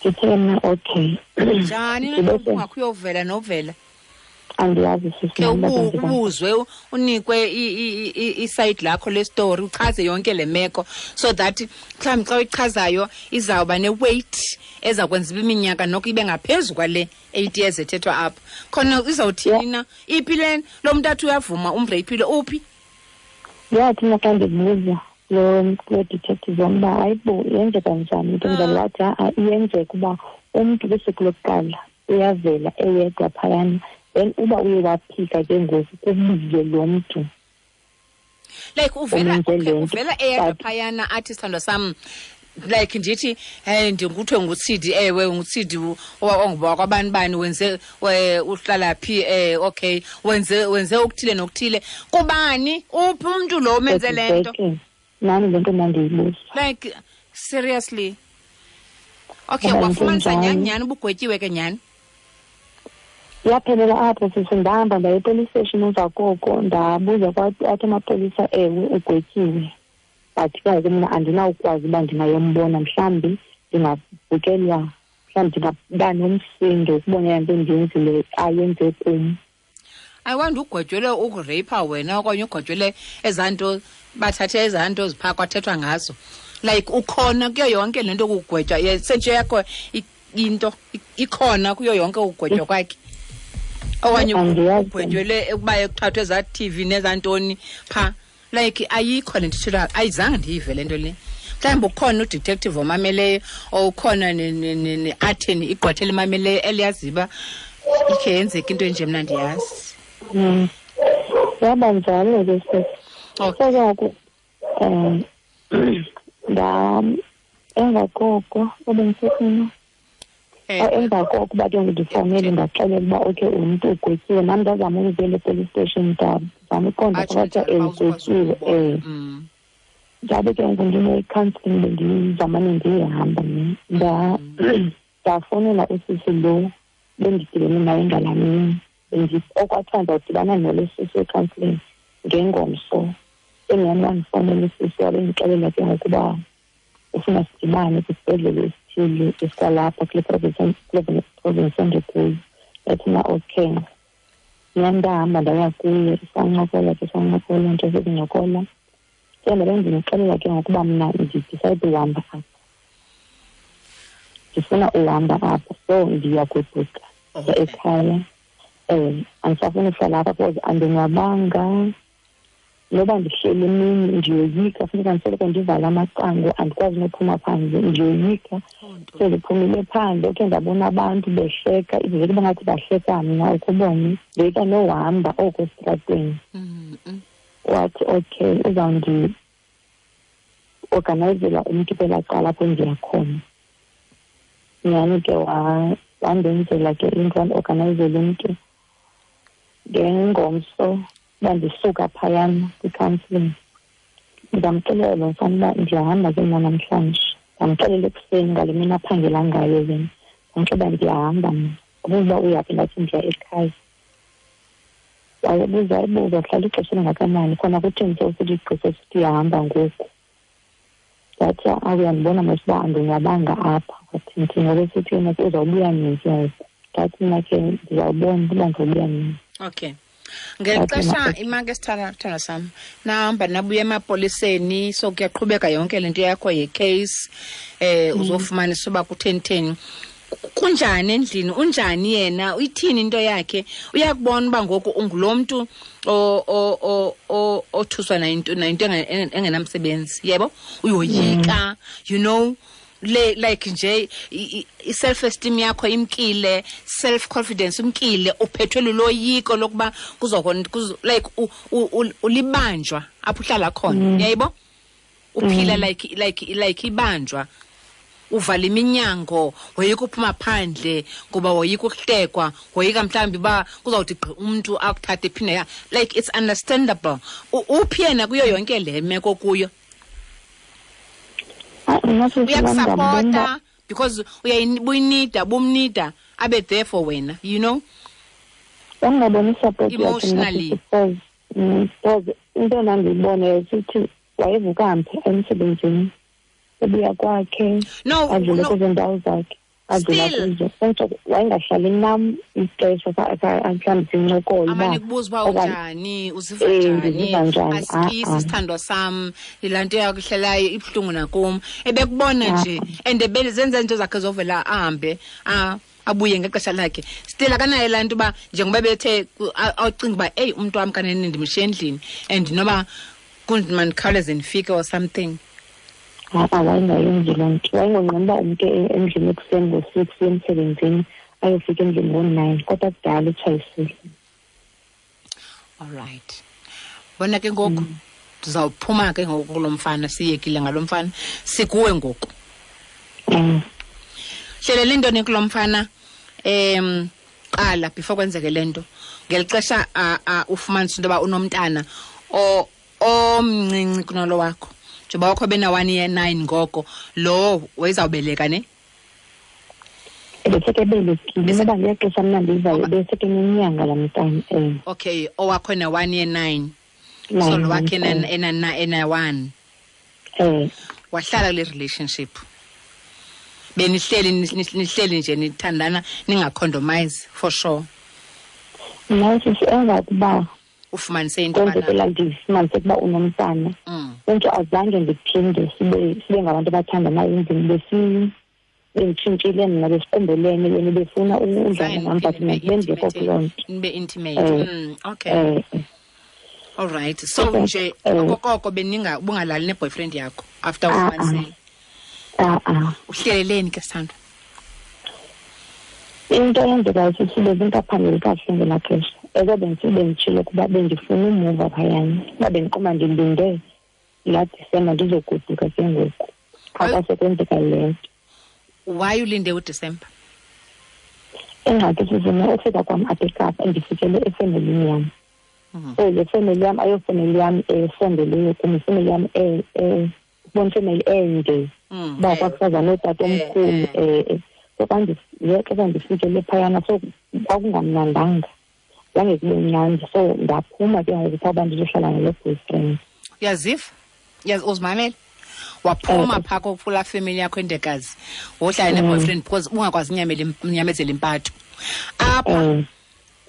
Ndithe mna okay.
Njani na
Ndibese
ungakho uyovela novela?
Andiyazi sisi
Ke
nam uba kwenzeka ntoni.
ubuzwe unikwe i-side lakho le story, uchaze yonke le meko so that mhlawumbi xa uyichazayo izawuba ne-weight eza kwenza uba iminyaka noko ibe ngaphezu kwale 8 years ethethwa apha. Khona izawuthini na? Iphi le lo mntu athi uyavuma umreyphile, uphi?
Yathi mna xa ndibuza lo detective wam uba hayibo yenzeka njani into enjalo, wathi ha-a iyenzeka uba umntu kwisuku lokuqala uyavela eyedwa phayana, then uba uye waphika ke ngoku kubizwe lo mntu.
Like
Umenze le nto.
uvela eyedwa
But
phayana athi sithandwa sam, like ndithi, hey, ndinguthiwe nguTsidi, ewe nguTsidi onguba kwabani bani, wenze, uhlala phi, okay, wenze okuthile nokuthile. Kubani? Uphi umntu lo umenze le nto?
Exactly. Nami le nto ndandiyibuza.
Like seriously. Okay,
Ngoba
wafumanisa
into
nyhani
enjalo.
nyhani ubugwetyiwe ke nyhani?
Yaphelela apho sisi, ndahamba ndaya e-police station emva koko, ndabuza athi amapolisa ewe ugwetyiwe. But ke ngoku mna andinawukwazi uba ndingayombona, mhlawumbi ndingavukelwa, mhlawumbi ndingaba nomsindo ukubona into endiyenzile ayenze kum.
I wonder ugwetyelwe ukureyipha wena okanye ugwetyelwe ezaa nto, bathathe ezaa nto ziphaa kwathethwa ngazo. Like ukhona kuyo yonke le nto kugwetywa, sentshe yakho into ikhona kuyo yonke ukugwetywa kwakhe. Okanye ugwetyelwe ukuba ekuthathwe ezaa TV nezantoni phaa. Like ayikho le nto ithethwayo, ayizange ndiyive le nto le. Mhlawumbi ukhona udetective omameleyo or ukhona ne-attorney, igqwetha elimameleyo eliyaziyo uba ikhe yenzeka into enje, mna ndiyazi.
Yaba njalo ke sisi. So ke ngoku emva koko ebendisefuna. Emva koko uba ke ndifowunele ndaxelela uba okay umntu ugwetyiwe, nam ndazama ukubuyela e-police station, ndazama uqonda kwathiwa ugwetyiwe. Ndabe ke ngoku ndine-counselling bendizamane ndiyihamba mna. Ndafowunela usisi lo bendidibene naye ngalaa mini. Okwathiwa ndizawudibana nalo sisi we-counselling ngengomso. Engam wandifowunela usisi wabe ndixelela ke ngoku uba ufuna sidibane kwisibhedlele esithile esikwalapha kule province endikuyo. Ndathi mna okay. Mna ndahamba ndaya kuye, sancokola ke, sancokola nto sekuncokola. Ke ndabe ndimxelela ke ngokuba mna ndidicide uhamba apha, ndifuna uhamba apha, so ndiyagoduka ekhaya. Andisafuni uhlala apha because andonwabanga. Noba ndihleli emini ndiyoyika, funeka ndisoloko ndivala amacango, andikwazi nophuma phandle, ndiyoyika. So ndiphumile phandle, okhe ndabona abantu behleka, ivele kube ngathi bahleka mna, ukubone. Ndoyika nohamba oko esitratweni. Wathi okay, uzawundi-organizela umntu kwelaa cala apho ndiya khona. Nyhani ke wandenzela ke into, wandiorganayizela umntu. Ngengomso uba ndisuka phayana kwi-counselling, ndamxelela lo mfana uba ndiyahamba ke mna namhlanje. Ndamxelela ekuseni ngale mini aphangela ngayo yena. Ndamxelela uba ndiyahamba mna. Wabuza uba uyaphi, ndathi ndiya ekhaya. Wayebuza, wayebuza, uhlala ixesha elingakanani, khona kutheni sewusithi igqirha esithi uyahamba ngoku. Ndathi, uyandibona mos uba andonwabanga apha. Wathi ndithi ngoba esithi yena uzawubuya nini ke ngoku. Ndathi mna ke ndizawubona uba ndizawubuya nini.
Okay. Ngeli xesha imake sithandwa sam, nahamba nabuya emapoliseni, so kuyaqhubeka yonke le nto yakho ye-case, uzofumanisa uba kutheni theni. Kunjani endlini, unjani yena, uyithini into yakhe? Uyakubona uba ngoku ungulo mntu othuswa nayinto engenamsebenzi, yebo? Uyoyika, you know, le like nje i-self-esteem yakho imkile, self-confidence imkile, uphethwe luloyiko lokuba like ulibanjwa apho uhlala khona, yayibo? Uphila like ibanjwa. Uvala iminyango, woyika uphuma phandle ngoba woyika ukuhlekwa, woyika mhlawumbi uba kuzawuthi gqi umntu akuthathe phinde ya. Like it's understandable. Uphi yena kuyo yonke le meko kuyo? Uyakusapota because uyayinida, bumnida abe there for wena, you know?
Ungaboni support yakhe
emotionally.
Because into endandiyibona yayisithi wayevuka mphi emsebenzini, ubuya kwakhe, adlule kwezo ndawo zakhe, adlula kuzo. Kodwa wayengahlali nam ixesha mhlawumbi sincokole uba
Amane kubuza uba unjani, uziva njani,
ndiziva njani?
Asikisi sithandwa sam, yilaa nto yakuhlelayo ibuhlungu nakum. Ebekubona nje, and zenza izinto zakhe zovela ahambe, abuye ngexesha lakhe. Still akanayo laa nto uba njengoba bethe acinga uba, eyi, umntu wam kanene ndimshiye endlini and noba kunzima ndikhawuleze ndifike or something.
Ha-a, wayengayenzi loo nto. Wayengonqeni uba umntu endlini ekuseni ngo-6 uye emsebenzini, ayofika endlini ngo-9, kodwa kudala etshayisile.
All right. Bona ke ngoku, ndizawuphuma ke ngoku kulo mfana, siyekile ngalo mfana, sikuwe ngoku. Hlelela intoni kulo mfana, qala before kwenzeke le nto. Ngeli xesha, ufumanisa into yoba unomntana omncinci kunalo wakho. Njengoba wakho bena 1 year 9 ngoko, lo wayezawubeleka ne?
Ebeseke ebelekile, noba ngexesha mna ndivayo, ebeseke nenyanga laa mntana,
Okay, owakho na 1 year 9.
Nine
So lo wakhe
months,
ena 1. Wahlala kule relationship. Benihleli, nihleli nje nithandana, ningacondomize for sure.
Mna sisi emva kokuba
ufumanise into
kwenzeke
yobana
laa ndifumanise ukuba unomntana. Into azange ndiphinde sibe ngabantu abathandanayo endlini, Benditshintshile mna, besiqumbelene, yena befuna udlala nam, but mna bendingekho kuloo nto.
Nibe intimate. Okay. All right. So nje okokoko beninga ubungalali ne-boyfriend yakho after ufumanisile? Uhleleleni ke, sithandwa?
Into eyenzekayo, sisi, bezingaphambili kakuhle ngelaa xesha. Eke benditshilo ukuba bendifuna umuva phayana, uba bendiqoma ndilinde laa Disemba ndizogoduka ke ngoku, qha kwasekwenzeka le nto.
Why ulinde uDisemba?
Ingxaki, sisime, ufika kwam apha eKapa, ndifikele efemelini yam. So le femeli yam ayofemeli yam esondeleyo kum, ifemeli yam ubona ifemeli ende, uba kwakusaza nootata omkhulu. So xa xesha ndifikele phayana, so kwakungamnandanga, zange kube mnandi, so ndaphuma ke ngoku phaa uba ndizohlala nale boyfriend.
Uyaziva, uzimamele, waphuma phaa kulaa family yakho endekazi, wohlala ne-boyfriend because ungakwazi unyamezela impatho apha.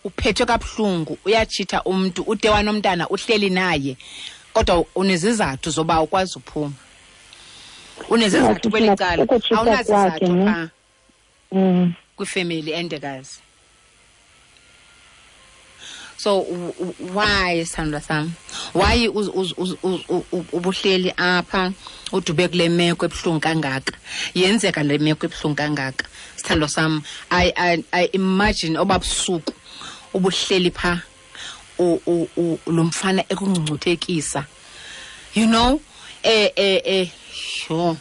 Uphethwe kabuhlungu, uyatshitha umntu, ude wanomntana, uhleli naye, kodwa unezizathu zoba ukwazi uphuma, unezizathu kweli cala, awunazizathu phaa kwifemeli endekazi. So why, sithandwa sam, why ubuhleli apha udube kule meko ebuhlungu kangaka? Yenzeka le meko ebuhlungu kangaka, sithandwa sam. I imagine obabusuku ubuhleli pha, lo mfana ekungcungcuthekisa, you know, sure,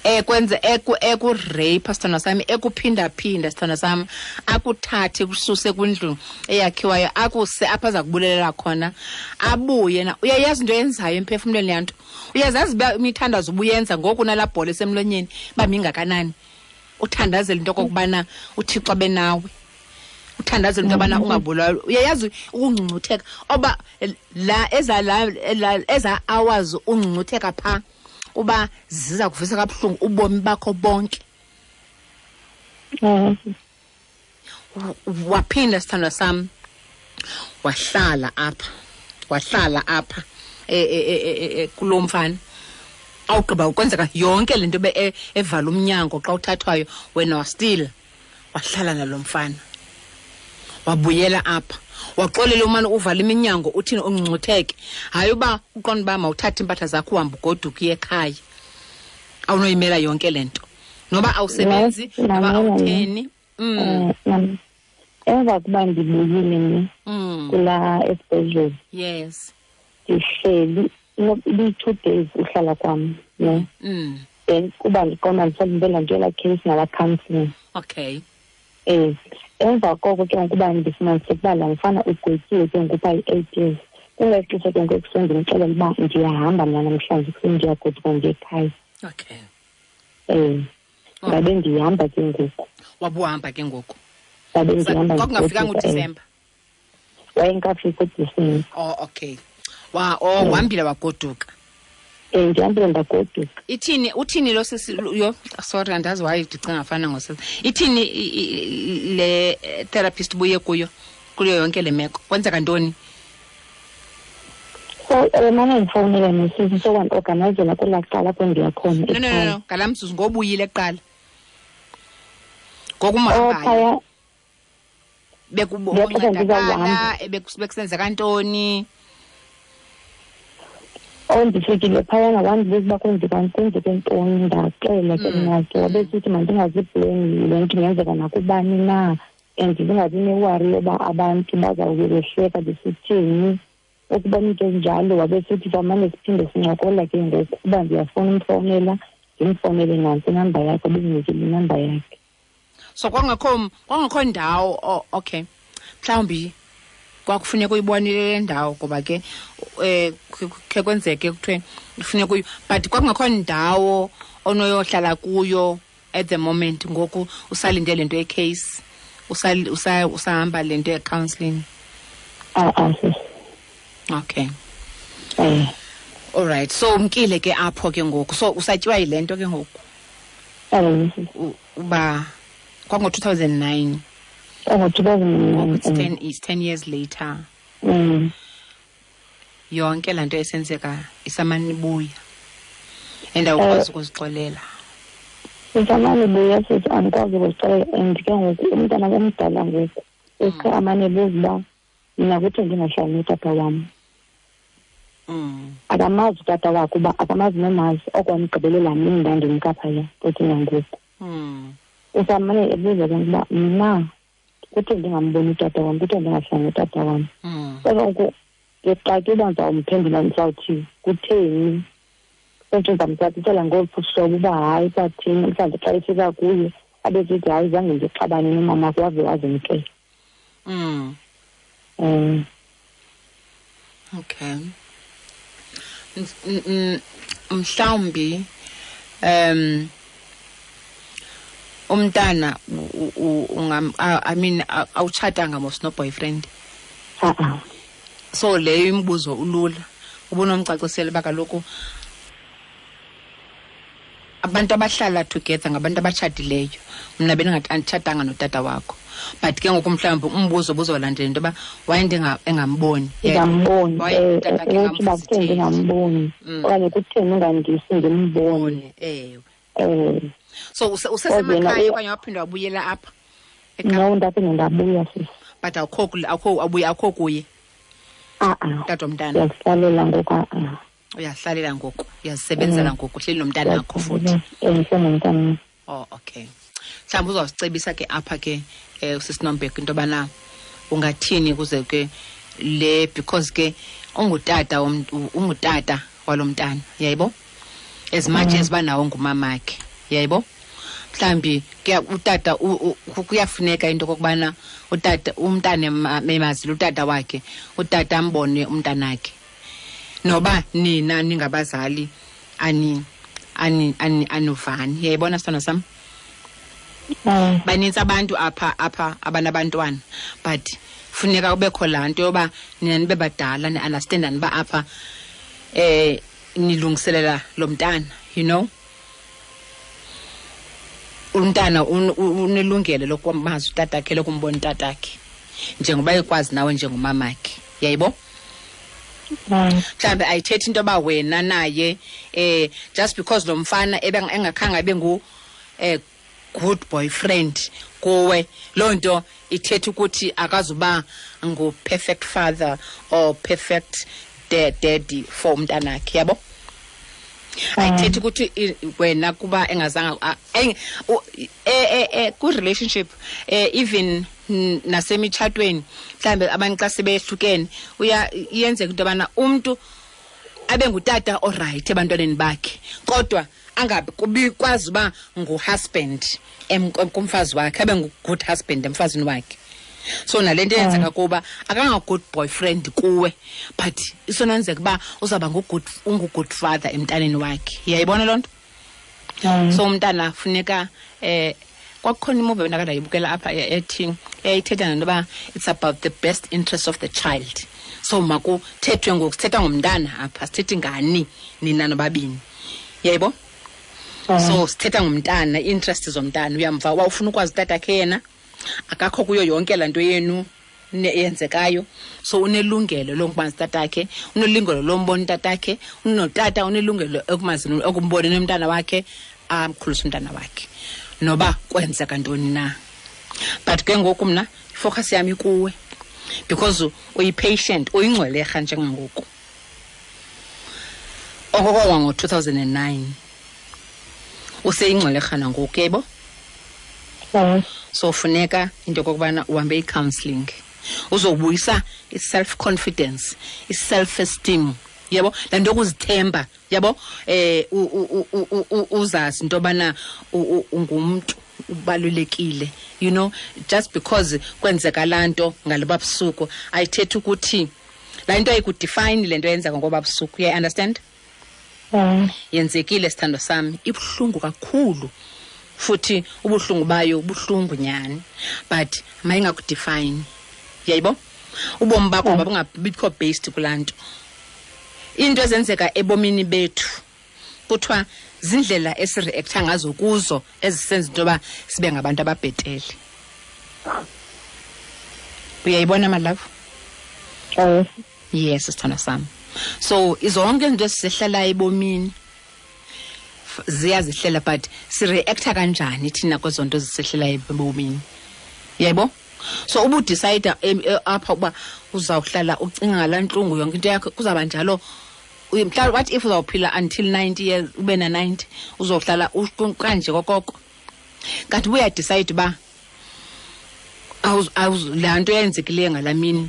ekwenza eku-rape, sithandwa sami, ekuphindaphinda, sithandwa sami, akuthathe kususe kwindlu eyakhiwayo, akuse apha aza kubulelela khona, abuye na. Uyayazi into eyenzayo emphefumlweni yanto? Uyazazi uba imithandazo ubuyenza ngoku nalaa bhola esemlonyeni uba mingakanani, uthandazela into okokubana uThixo abe nawe, uthandazela into yobana ungabulawa? Uyayazi ukungcungcutheka oba la eza la eza hours ungcungcutheka phaa uba ziza kuvisa kabuhlungu ubomi bakho bonke? Waphinda, sithandwa sam, wahlala apha, wahlala apha kulo mfana, awugqiba ukwenzeka yonke le nto evala umnyango xa uthathwayo, wena wa-still wahlala nalo mfana, wabuyela apha, waxolela umane uvala iminyango, uthini, ungcungcutheke. Hayi, uba uqonda uba mawuthathe iimpahla zakho uhambe ugoduke uye ekhaya, awunoyimela yonke le nto, noba awusebenzi, noba awutheni.
Emva kuba ndibuyile ne kulaa esibhedlele, ndihleli ibiyi-2 days uhlala kwam ne, then kuba ndiqonda ndisalindele laa nto yelaa case nalaa counselling. Emva koko ke ngokuba ndifumanise ukuba laa mfana ugwetyiwe ke ngoku phaa yi-8 years, kulaa xesha ke ngoku ekuseni ndimxelela uba ndiyahamba mna namhlanje ekuseni, ndiyagoduka ndiye ekhaya. Ndabe ndihamba ke ngoku.
Wabuhamba ke ngoku?
Ndabe ndihamba.
Kwakungafikanga
ndigoduka, eh.
uDisemba?
Wayengekafiki uDisemba.
Oh, okay. Wa oh uhambile wagoduka.
Ndihambile ndagoduka.
Ithini, uthini lo sisi yo? Sorry, andazi why ndicinga fana ngosisi. Ithini le therapist buye kuyo kuyo yonke le meko? Kwenzeka ntoni?
So mane ndifowunela nosisi, so wandiorganizela kwelaa cala apho ndiya khona
No, no, no,
ekhaya.
no, ngalaa mzuzu ngobuyile kuqala,
Oh,
ngokumhambayo
phaya. Ngexesha
bekuncedakala
ndizawuhamba.
Bekusenzeka ntoni?
Oh, ndifikile phayana, wandibuza uba kwenzeke ntoni, ndaxela ke mna ke. Wabe sithi mandingaziblame, le nto ingenzeka nakubani na, and ndingabi ne-worry yoba abantu bazawube behleka besithini, ukuba into enjalo. Wabe sithi samane siphinde sincokola ke ngoku, uba ndiyafuna umfowunela, ndimfowunele, nantsi inamba yakhe, bendinikile inamba yakhe.
So kwangekho ndawo. Oh, okay, mhlawumbi kwakufuneka uyibonile le ndawo, ngoba ke khe kwenzeke kuthiwe kufuneka uyi, but kwakungekho ndawo onoyohlala kuyo at the moment ngoku usalinde le nto ye-case, usahamba le nto ye-counselling?
A-a, sisi.
Okay. All right, so umkile ke apho ke ngoku, so usatyiwa yile nto ke ngoku?
Ewe, sisi.
Uba kwango-2009?
Ngo-2009.
It's 10, it's 10 years later. Yonke laa nto esenzeka isamane ibuya and awukwazi ukuzixolela.
Sisamane buya sithi andikwazi ukuzixelela, and ke ngoku umntana omdala ngoku uske amane buza uba mna kuthi ndingahlali notata wam. Akamazi utata wakhe, uba akamazi nomazi okwamgqibelela mini ndandimka phaya futhi nangoku. Usamane ebuza ke uba mna kuthi ndingamboni utata wam, kuthi ndingahlali notata wam. So ngoku ndixake uba ndizawumphendula ndizawuthi kutheni. Kodwa ndizamcacisela ngolu hlobo uba hayi kwathini, mhlawumbi xa efika kuye abe sithi hayi zange ndixabane nomama wave wazimkela.
Okay. Mhlawumbi umntana I mean awutshatanga mos no boyfriend. So leyo imibuzo ulula ubunomcacisela uba kaloku abantu abahlala together ngabantu abatshatileyo. Mna bendingatshatanga notata wakho, but ke ngoku mhlawumbi umbuzo buzolandela into yoba waye engamboni.
Ndingamboni, uthi uba kutheni ndingamboni okanye kutheni ungandisi ndimbone.
Ewe. So usesemakhaya okanye waphinda wabuyela apha?
No, ndaphinde ndabuya sisi.
But awukho kuye? Tata womntana.
Uyazihlalela ngoku.
Uyazihlalela ngoku, uyazisebenzela ngoku, uhleli nomntana wakho futhi.
Ndisenomntana.
Oh, okay. Mhlawumbi uzawusicebisa ke apha ke usisi Nombeko into yobana ungathini kuze ke le, because ke ungutata ungutata walo mntana, yayibo? As much as uba nawo ngumamakhe, yayibo? Mhlawumbi utata kuyafuneka into okokubana utata umntana emazile utata wakhe, utata ambone umntanakhe. Noba nina ningabazali anuvani. Uyayibona sithando sam? Banintsi abantu apha abanabantwana, but funeka kubekho laa nto yoba nina nibe badala ni-understandani uba apha nilungiselela lo mntana, you know. Umntana unelungelo lokumazi utatakhe, lokumbona utatakhe njengoba ekwazi nawe njengomamakhe, yayibo? Mhlawumbi ayithethi into yoba wena naye just because lo mfana engakhange abe ngu good boyfriend kuwe, loo nto ithetha ukuthi akazuba ngu-perfect father or perfect daddy for umntanakhe, yabo? Ayithethi ukuthi wena kuba engazanga ku-relationship even nasemitshatweni mhlawumbi abantu xa sebehlukene iyenzeka into yobana umntu abe ngutata orayithi ebantwaneni bakhe, kodwa angabikwazi uba ngu-husband kumfazi wakhe, abe ngu-good husband emfazini wakhe. So nale nto eyenzeka kuba akanga-good boyfriend kuwe, but isonenzeka uba uzawuba ungu-good father emntaneni wakhe. Uyayibona loo nto? So umntana funeka kwakukhona imuvi endakandayibukela apha ethi eyayithetha ngento yoba it's about the best interest of the child. So makuthethwe ngoku, sithetha ngomntana apha, sithethi ngani nina nobabini. Uyayibo? So sithetha ngomntana, i-interest zomntana. Uyamva uba ufuna ukwazi utatakhe yena, akakho kuyo yonke laa nto yenu eyenzekayo. So unelungelo lokumazi tatakhe, unelungelo lombona utatakhe, unotata unelungelo ekumboneni umntana wakhe, amkhulise umntana wakhe noba kwenzeka ntoni na. But ke ngoku mna ifocus yam ikuwe because uyi-patient, uyingcwelerha njengangoku. Okokowa ngo-2009 useyingcwelerha nangoku, yayibo? So funeka into yokokubana uhambe i-counselling, uzobuyisa i-self confidence, i-self esteem, yabo, laa nto yokuzithemba, yabo, uzazi into yobana ungumntu ubalulekile, you know. Just because kwenzeka laa nto ngaloba busuku ayithethi ukuthi laa nto ayikudefine le nto yenzeka ngoba busuku. Uyayi-understand? Yenzekile sithando sami, ibuhlungu kakhulu futhi ubuhlungu bayo buhlungu nyani, but mayingakudefine, uyayibo? Ubomi bakho babungabikho based kulaa nto. Into ezenzeka ebomini bethu kuthiwa zindlela esireactha ngazo kuzo ezisenza into yoba sibe ngabantu ababhetele. Uyayibona my love? Yes, sithando sami. So izonke izinto esizehlalayo ebomini Ziyazihlela, but sireacta kanjani thina kwezo nto zisehlelayo ebomini, yebo? So ubudecide apha uba uzawuhlala ucinga ngalaa ntlungu yonke into yakho, kuzawuba njalo. Mhlawumbi what if uzawuphila until 90 years, ube na-90, uzohlala kanje kokoko? Kanti ubuyadecide uba laa nto yenzekileyo ngalaa mini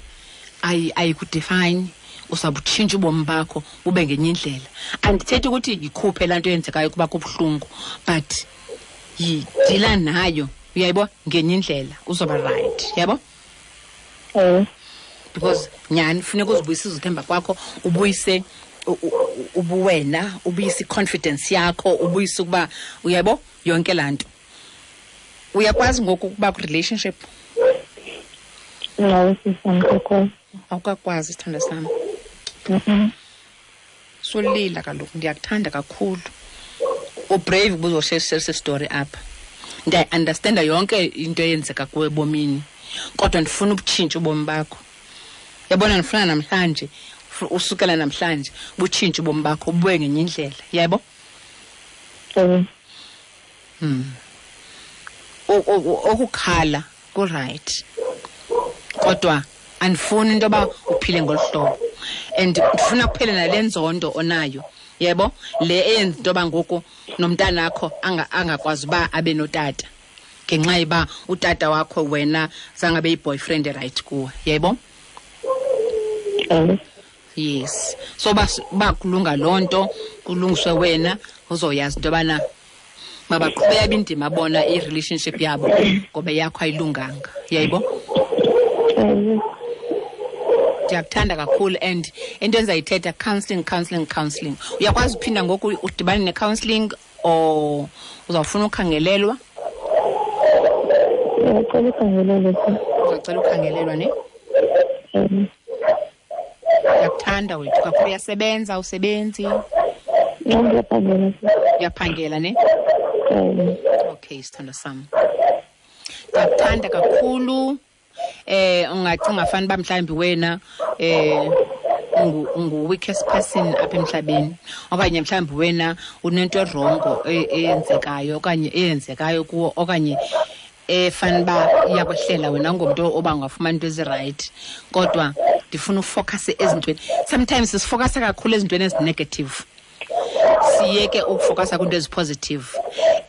ayikudefine, uzawubutshintsha ubomi bakho bube ngenye indlela. Andithethi ukuthi yikhuphe laa nto yenzekayo kuba kubuhlungu, but yidila nayo, uyayibo, ngenye indlela uzoba right, yabo? Because nyhani funeka uzibuyise uzithemba kwakho, ubuyise ubuwena, ubuyise i-confidence yakho, ubuyise ukuba, uyabo, yonke laa nto. Uyakwazi ngoku ukuba kwi-relationship?
No, sisi, andikakwazi.
Awukakwazi, sithandwa sam? Solila kaloku, ndiyakuthanda kakhulu. Ubrave ukuba uzoshare story apha. Ndiyayi-understanda yonke into eyenzeka kuwe ebomini, kodwa ndifuna ubutshintshe ubomi bakho. Yabona, ndifuna namhlanje, usukela namhlanje, butshintshe ubomi bakho, bubuye ngenye indlela, yebo? Okukhala ku-right, kodwa andifuni into yoba uphile ngolu hlobo, and ndifuna kuphele nale nzondo onayo, yebo, le eyenza into yoba ngoku nomntanakho angakwazi uba abe notata ngenxa yoba utata wakho wena zange abe yi-boyfriend right kuwe, yebo? Yes. So ba kulunga loo nto, kulungiswe wena, uzoyazi into yobana mabaqhubeka indima bona i-relationship yabo ngoba yakho ayilunganga, yayibo? Ndiyakuthanda kakhulu, and into endizayithetha, counselling, counselling, counselling. Uyakwazi uphinda ngoku udibane ne-counselling or uzawufuna ukhangelelwa?
Ndiyacela ukhangelelwa.
Uzawucela ukhangelelwa, ne? Ndiyakuthanda wethu kakhulu. Uyasebenza, usebenzi?
Ndiyaphangela.
Uyaphangela, ne? Okay, sithando sam, ndiyakuthanda kakhulu. Ungacinga fana uba mhlawumbi wena ungu-weakest person apha emhlabeni, okanye mhlawumbi wena unento erongo eyenzekayo okanye eyenzekayo kuwo, okanye efana uba iyakwehlela wena, ungumntu oba ungafumana into ezirayithi, kodwa ndifuna ufocuse ezintweni. Sometimes sifocuse kakhulu ezintweni ezinegative, siyeke ukufocasa kwinto ezipositive,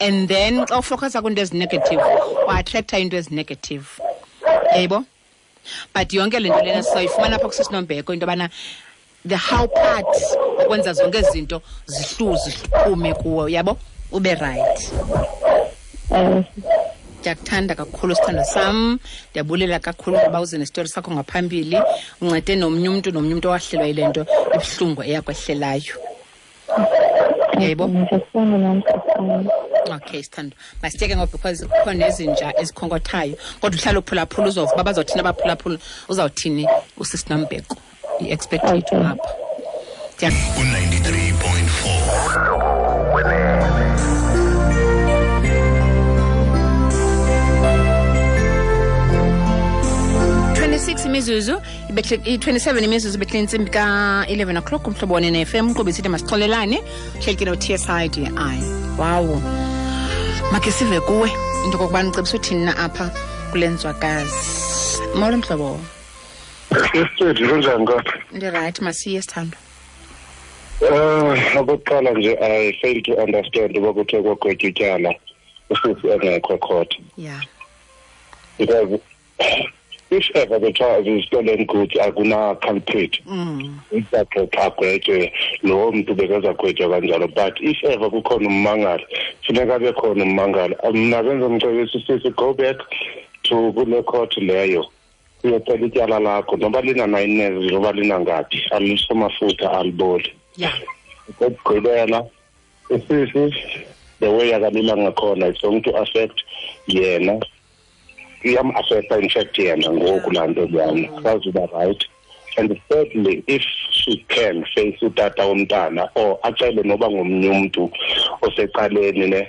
and then xa ufocasa kwinto ezinegative uattracta into ezinegative, yayibo? But yonke le nto lena sizoyifumana apha kusisinombeko, into yobana the how part okwenza zonke ezi zinto zihluze ziphume kuwo, yabo, ube right. Ndiyakuthanda kakhulu, sithandwa sam. Ndiyabulela kakhulu ngoba uze nesitori sakho ngaphambili, uncede nomnye umntu, nomnye umntu owahlelwa yile nto ibuhlungu eyakwehlelayo, yayibo? Okay, sithandwa, masiyeke ngoba because kukho nezinja ezikhonkothayo, kodwa uhlala uphulaphula, uzova uba bazothini abaphulaphula, uzawuthini usisinombeko, i-expert yethu apha.
U-93.4.
26 imizuzu i-27 imizuzu ibethe intsimbi ka-11 o'clock. Umhlobo wone ne-FM, uqhube isithi masixolelane, hleli ke no-TSIDI. Wawo, makhe sive kuwe into okokubana ucebisa uthini na apha kule nzwakazi. Molo, mhlobo.
Sisithethe, kunjani kodwa?
Ndirayithi, masiye, sithandwa.
Okokuqala nje, I fail to understand uba kuthiwe kwagwetywa ityala usisi engekho court. Because if ever kuthiwa zi-stolen goods, akuna culprit. Izagqitha agwetywe lowo mntu bekazagwetywa kanjalo, but if ever kukhona ummangali, funeka abe khona ummangali. Mna benzomcebisa usisi, go back to kule court leyo, uyocela ityala lakho, noba lina-9 years, noba linangaphi, aliso mafutha aliboli. Okokugqibela, usisi, the way akalila ngakhona, it's going to affect yena, iyam-affecta in fact yena ngoku laa nto leyana, akazuba right. And thirdly, if she can face utata womntana or acele noba ngomnye umntu osecaleni ne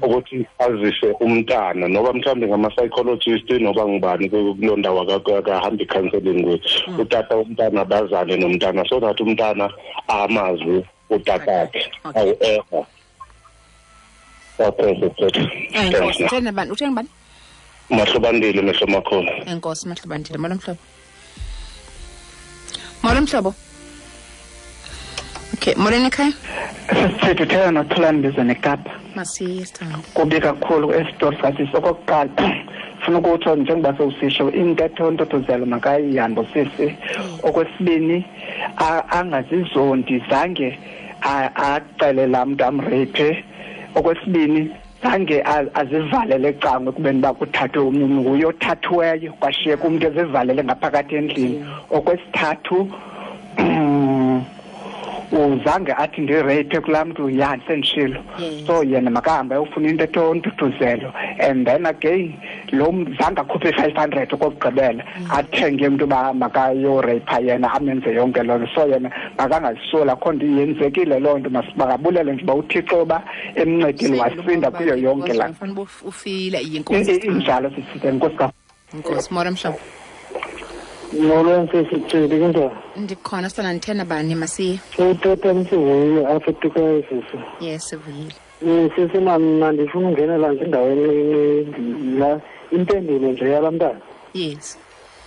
ukuthi azise umntana, noba mhlawumbi ngama-psychologist, noba ngubani kuloo ndawo akahambi i-counselling kuyo, utata womntana bazane nomntana so that umntana amazi utatakhe. However, Okay, sisi.
Enkosi. Utheni bani? Utheni bani?
Mahlobandile mehlo makhulu.
Enkosi Mahlobandile. Molo mhlobo. Molo mhlobo. Okay, molweni ekhaya.
Sisithethe uthetha noThulani Mbizo neKapa.
Masiye sithando.
Kubi kakhulu esitori sasisi. Okokuqala funa ukutsho njengoba sewusisho intetho ntothozelo makayihambe sisi. Okwesibini angazizondi zange acele laa mntu amreyiphe. Okwesibini zange azivalele ecango ekubeni uba kuthathwe omnye umntu, nguye othathiweyo kwashiyeka umntu ezivalele ngaphakathi endlini. Okwesithathu uzange athi ndireyiphe kulaa mntu, ya sendishilo. So yena makahambe ayofuna into ethonthuthuzelo. And then again lo mntu zange akhuphe i-500 okokugqibela athenge umntu uba makayoreyipha yena amenze yonke loo nto. So yena makangazisoli, akho nto yenzekile loo nto, makabulele nje uba uThixo uba emncedile wasinda kuyo yonke laa
nto. Ufile inkosi.
Injalo sisithi, enkosi kakhulu.
Enkosi. Molo mhlobo.
Molo sisi, kunjani?
Ndikhona sithanda ndithena bani masiye.
Uthetha msivuyile apha eTukayo sisi.
Yes, sivuyile.
Sisi mna ndifuna ungenela nje endaweni la impendulo nje yalaa mntana.
Yes.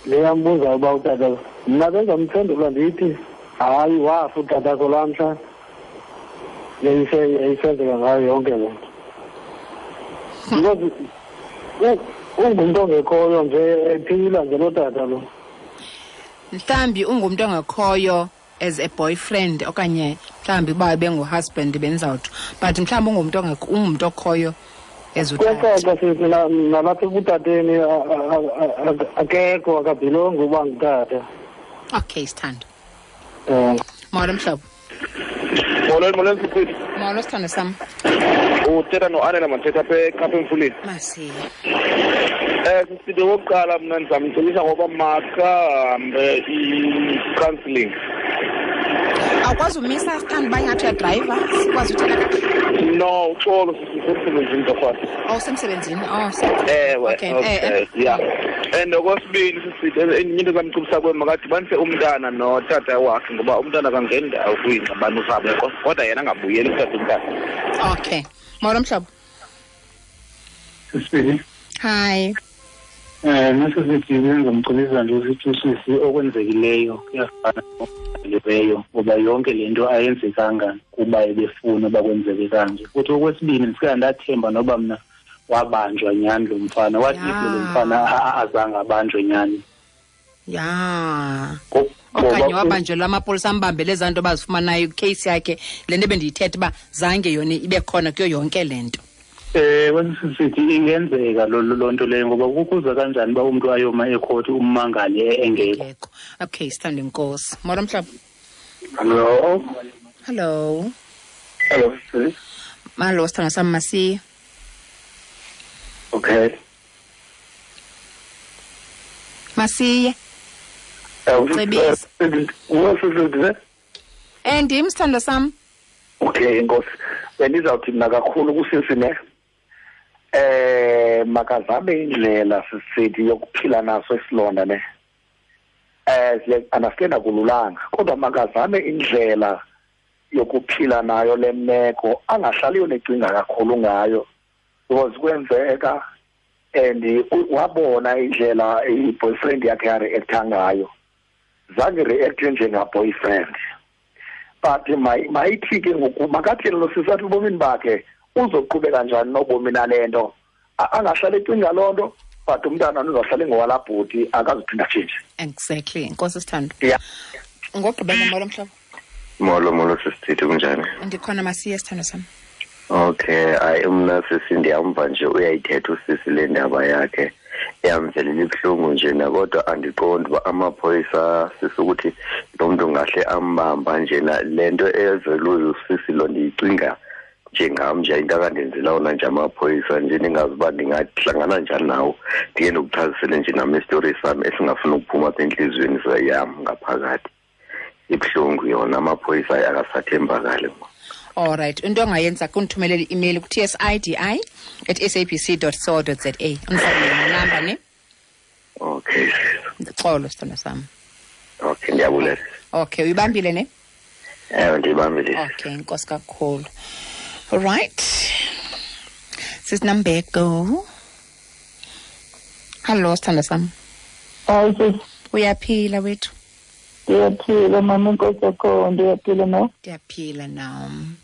Le yambuza uba utata, mna benzamphendula ndithi hayi wafa utatakho laa mhla yayisenzeka ngayo yonke le nto. Because ungumntu ongekhoyo nje ephila nje lo tata lo.
Mhlawumbi ungumntu ongekhoyo as a boyfriend okanye mhlawumbi uba bengu-husband benzawuthi, but mhlawumbi ungumntu ungumntu okhoyo as utata.
Kuyacaca sisi nalapha ekutateni akekho, akabhilongi uba ngutata.
Okay, sithando. Molo mhlobo.
Molo, molo sisi.
Molo sithando sam.
Uthetha no-Anela Mathetha apha eKapa eMfuleni.
Masiye.
Sisithi okokuqala mna ndizamcebisa ngoba makahambe i-counselling.
Awukwazi umisa sithando uba ingathi uyadrayiva, sikwazi uthetha kakuhle?
No, uxolo sisi, usemsebenzini torhwana.
Oh, usemsebenzini. Oh,
ewe,
okay.
Okay, yeah. And okwesibini sisithi enye into ezamcebisa kuyo makadibanise umntana notata wakhe ngoba umntana akangeni ndawo kwiingxabano zabo, kodwa yena angabuyeli kutata umntana.
Okay. Molo mhlobo.
Sisibili.
Hi.
Nasisithi bengizomcebisa nje ukuthi usisi okwenzekileyo kuyafana nokudaliweyo ngoba yonke le nto ayenzekanga kuba ebefuna uba kwenzeke kanje. Futhi okwesibini ndifika ndathemba noba mna wabanjwa nyhani lo mfana, wathi lo mfana azange abanjwe nyhani.
Ya. Okanye wabanjelwa amapolisa ambambele ezaa nto bazifumanayo icase yakhe, le nto bendiyithetha uba zange yona ibe khona kuyo yonke le nto.
Sithi ingenzeka loo nto leyo ngoba kukuza kanjani uba umntu ayoma ekhoti ummangali engekho.
Okay, sithande inkosi. Molo mhlobo.
Hello.
Hello.
Hello, sis.
Malo sithando sam masiye.
Okay.
Masiye. Cebisa. Ndim sithando sam.
Okay, inkosi. Bendizawuthi mna kakhulu kusisi ne. Makazame indlela sisithi yokuphila naso isilonda ne. Siya-understand akululanga, kodwa makazame indlela yokuphila nayo le meko, angahlali yonecinga kakhulu ngayo because kwenzeka and wabona indlela i-boyfriend yakhe yareacta ngayo. Zange react njenga-boyfriend. But mayithi ke ngoku makathi lo sisi athi ubomini bakhe uzoqhubeka njani nobomi nale nto. Angahlali ecinga loo nto, but umntana uzohlala engowalaa bhuti, akazuphinda atshintshe.
Exactly. Enkosi sithando.
Yeah.
Ngokugqibela molo mhlobo.
Molo, molo sisithi, kunjani?
Ndikhona masiye sithando sam.
Okay, hayi mna sisi ndiyamva nje uyayithetha usisi le ndaba yakhe. Yamvelela ibuhlungu nje na, kodwa andiqondi uba amaphoyisa sisi ukuthi lo mntu ngahle ambamba nje na. Le nto ezelwe usisi lo ndiyicinga njengam nje into akandenzela wona nje amaphoyisa nje, ndingazi uba ndingahlangana njani nawo. Ndike ndikuchazisele nje nam isitori sam esingafuni ukuphuma apha entliziyweni yam ngaphakathi. Ibuhlungu yona, amaphoyisa akasathembakali.
All right. Into ongayenza kundithumelela i-email ku-tsidi@sabc.co.za. Undifakele nenamba ne?
Okay.
Xolo sithando sam.
Okay, ndiyabulela.
Okay, uyibambile ne?
Ewe, ndiyibambile.
Okay, inkosi kakhulu. All right. Sisinambeko. Hallo sithanda sami.
Hayi sisi.
Uyaphila wethu?
Ndiyaphila mama, inkosi yakho, ndiyaphila no?
Ndiyaphila nam.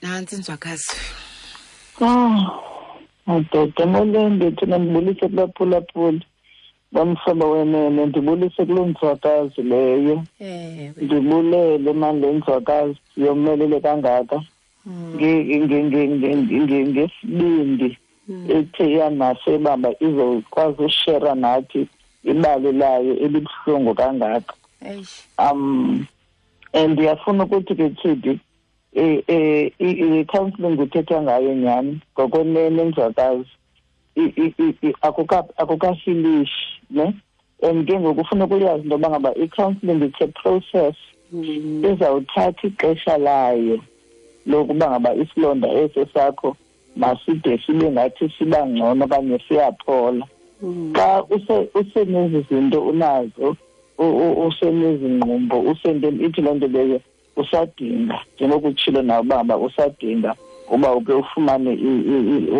Nantsi inzwakazi.
Madoda, molweni ndithu, ndibulise kubaphulaphuli bamhlobo wenene, ndibulise kuloo nzwakazi leyo. Ndibulele mani le nzwakazi yomelele kangaka ngesibindi ethe yanaso ebamba izokwazi ushera nathi ibali layo elibuhlungu kangaka. And ndiyafuna ukuthi ke Tshidi, i-counseling kuthethwa ngayo nyhani ngokwenene nzwakazi akukahilishi ne. And ke ngoku ufuna ukuyazi into yoba ngaba i-counseling it's a process izawuthatha ixesha layo lokuba ngaba isilonda eso sakho maside sibe ngathi siba ngcono okanye siyaphola. Xa usenezi zinto unazo, usenezingqumbo, usentweni ithi loo nto leyo usadinga, njengokutshilo nawe uba usadinga uba uke ufumane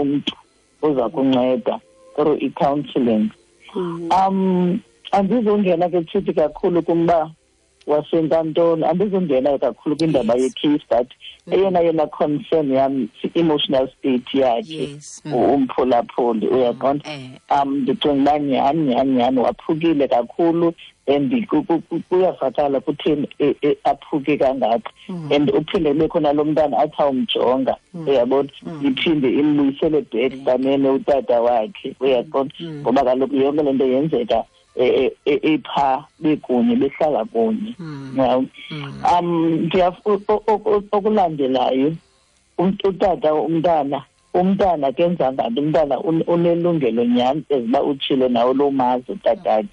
umntu oza kunceda through i-counseling. Andizongena ke Tshidi kakhulu kumba wasenkantolo, andizongena kakhulu kwindaba ye-case, but eyona concern yam emotional state yakhe umphulaphuli, uyaqonda. Ndicinga uba nyhani waphukile kakhulu and kuyavakala kutheni aphuke kangaka, and uphinde kube khona lo mntana athi awumjonga, uyabona, iphinde imbuyisele back kanene utata wakhe, uyaqonda, ngoba kaloku yonke le nto yenzeka epha bekunye, behlala kunye. Okulandelayo utata umntana kenza nganto, umntana unelungelo nyhani eziba utshilo nawe loo mazi utatakhe,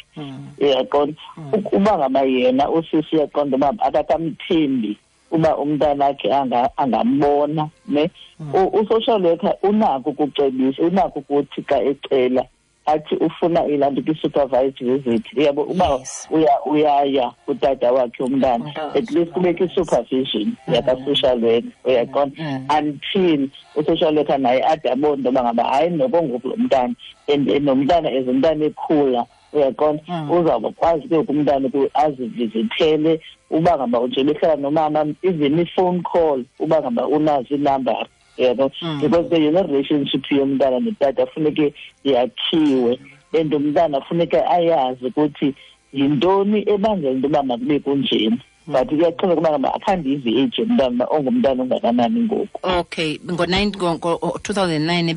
uyaqonda. Uba ngaba yena usisi uyaqonda uba akakamthembi uba umntana akhe angambona ne, u-social worker unako ukucebisa, unako ukuthi xa ecela athi ufuna ilanto ki-supervised visit, uyabo, uba uyaya utata wakhe umntana, at least kubekho i-supervision yaka-social worker, uyaqonda, until u-social worker naye ade abone into yoba ngaba hayi noko ngoku lo mntana, and nomntana as umntana ekhula, uyaqonda, uzawukwazi ke umntana azivizithele uba ngaba nje behlala nomama, even i-phone call uba ngaba unazo inambara, yabo, because the relationship yomntana notata funeke yakhiwe, and umntana funeke ayazi ukuthi yintoni ebangela into yoba makube kunjena. But kuyaxhomekeka uba ngaba akhandive age yomntana ongumntana ongakanani ngoku.
Okay, ngo-2009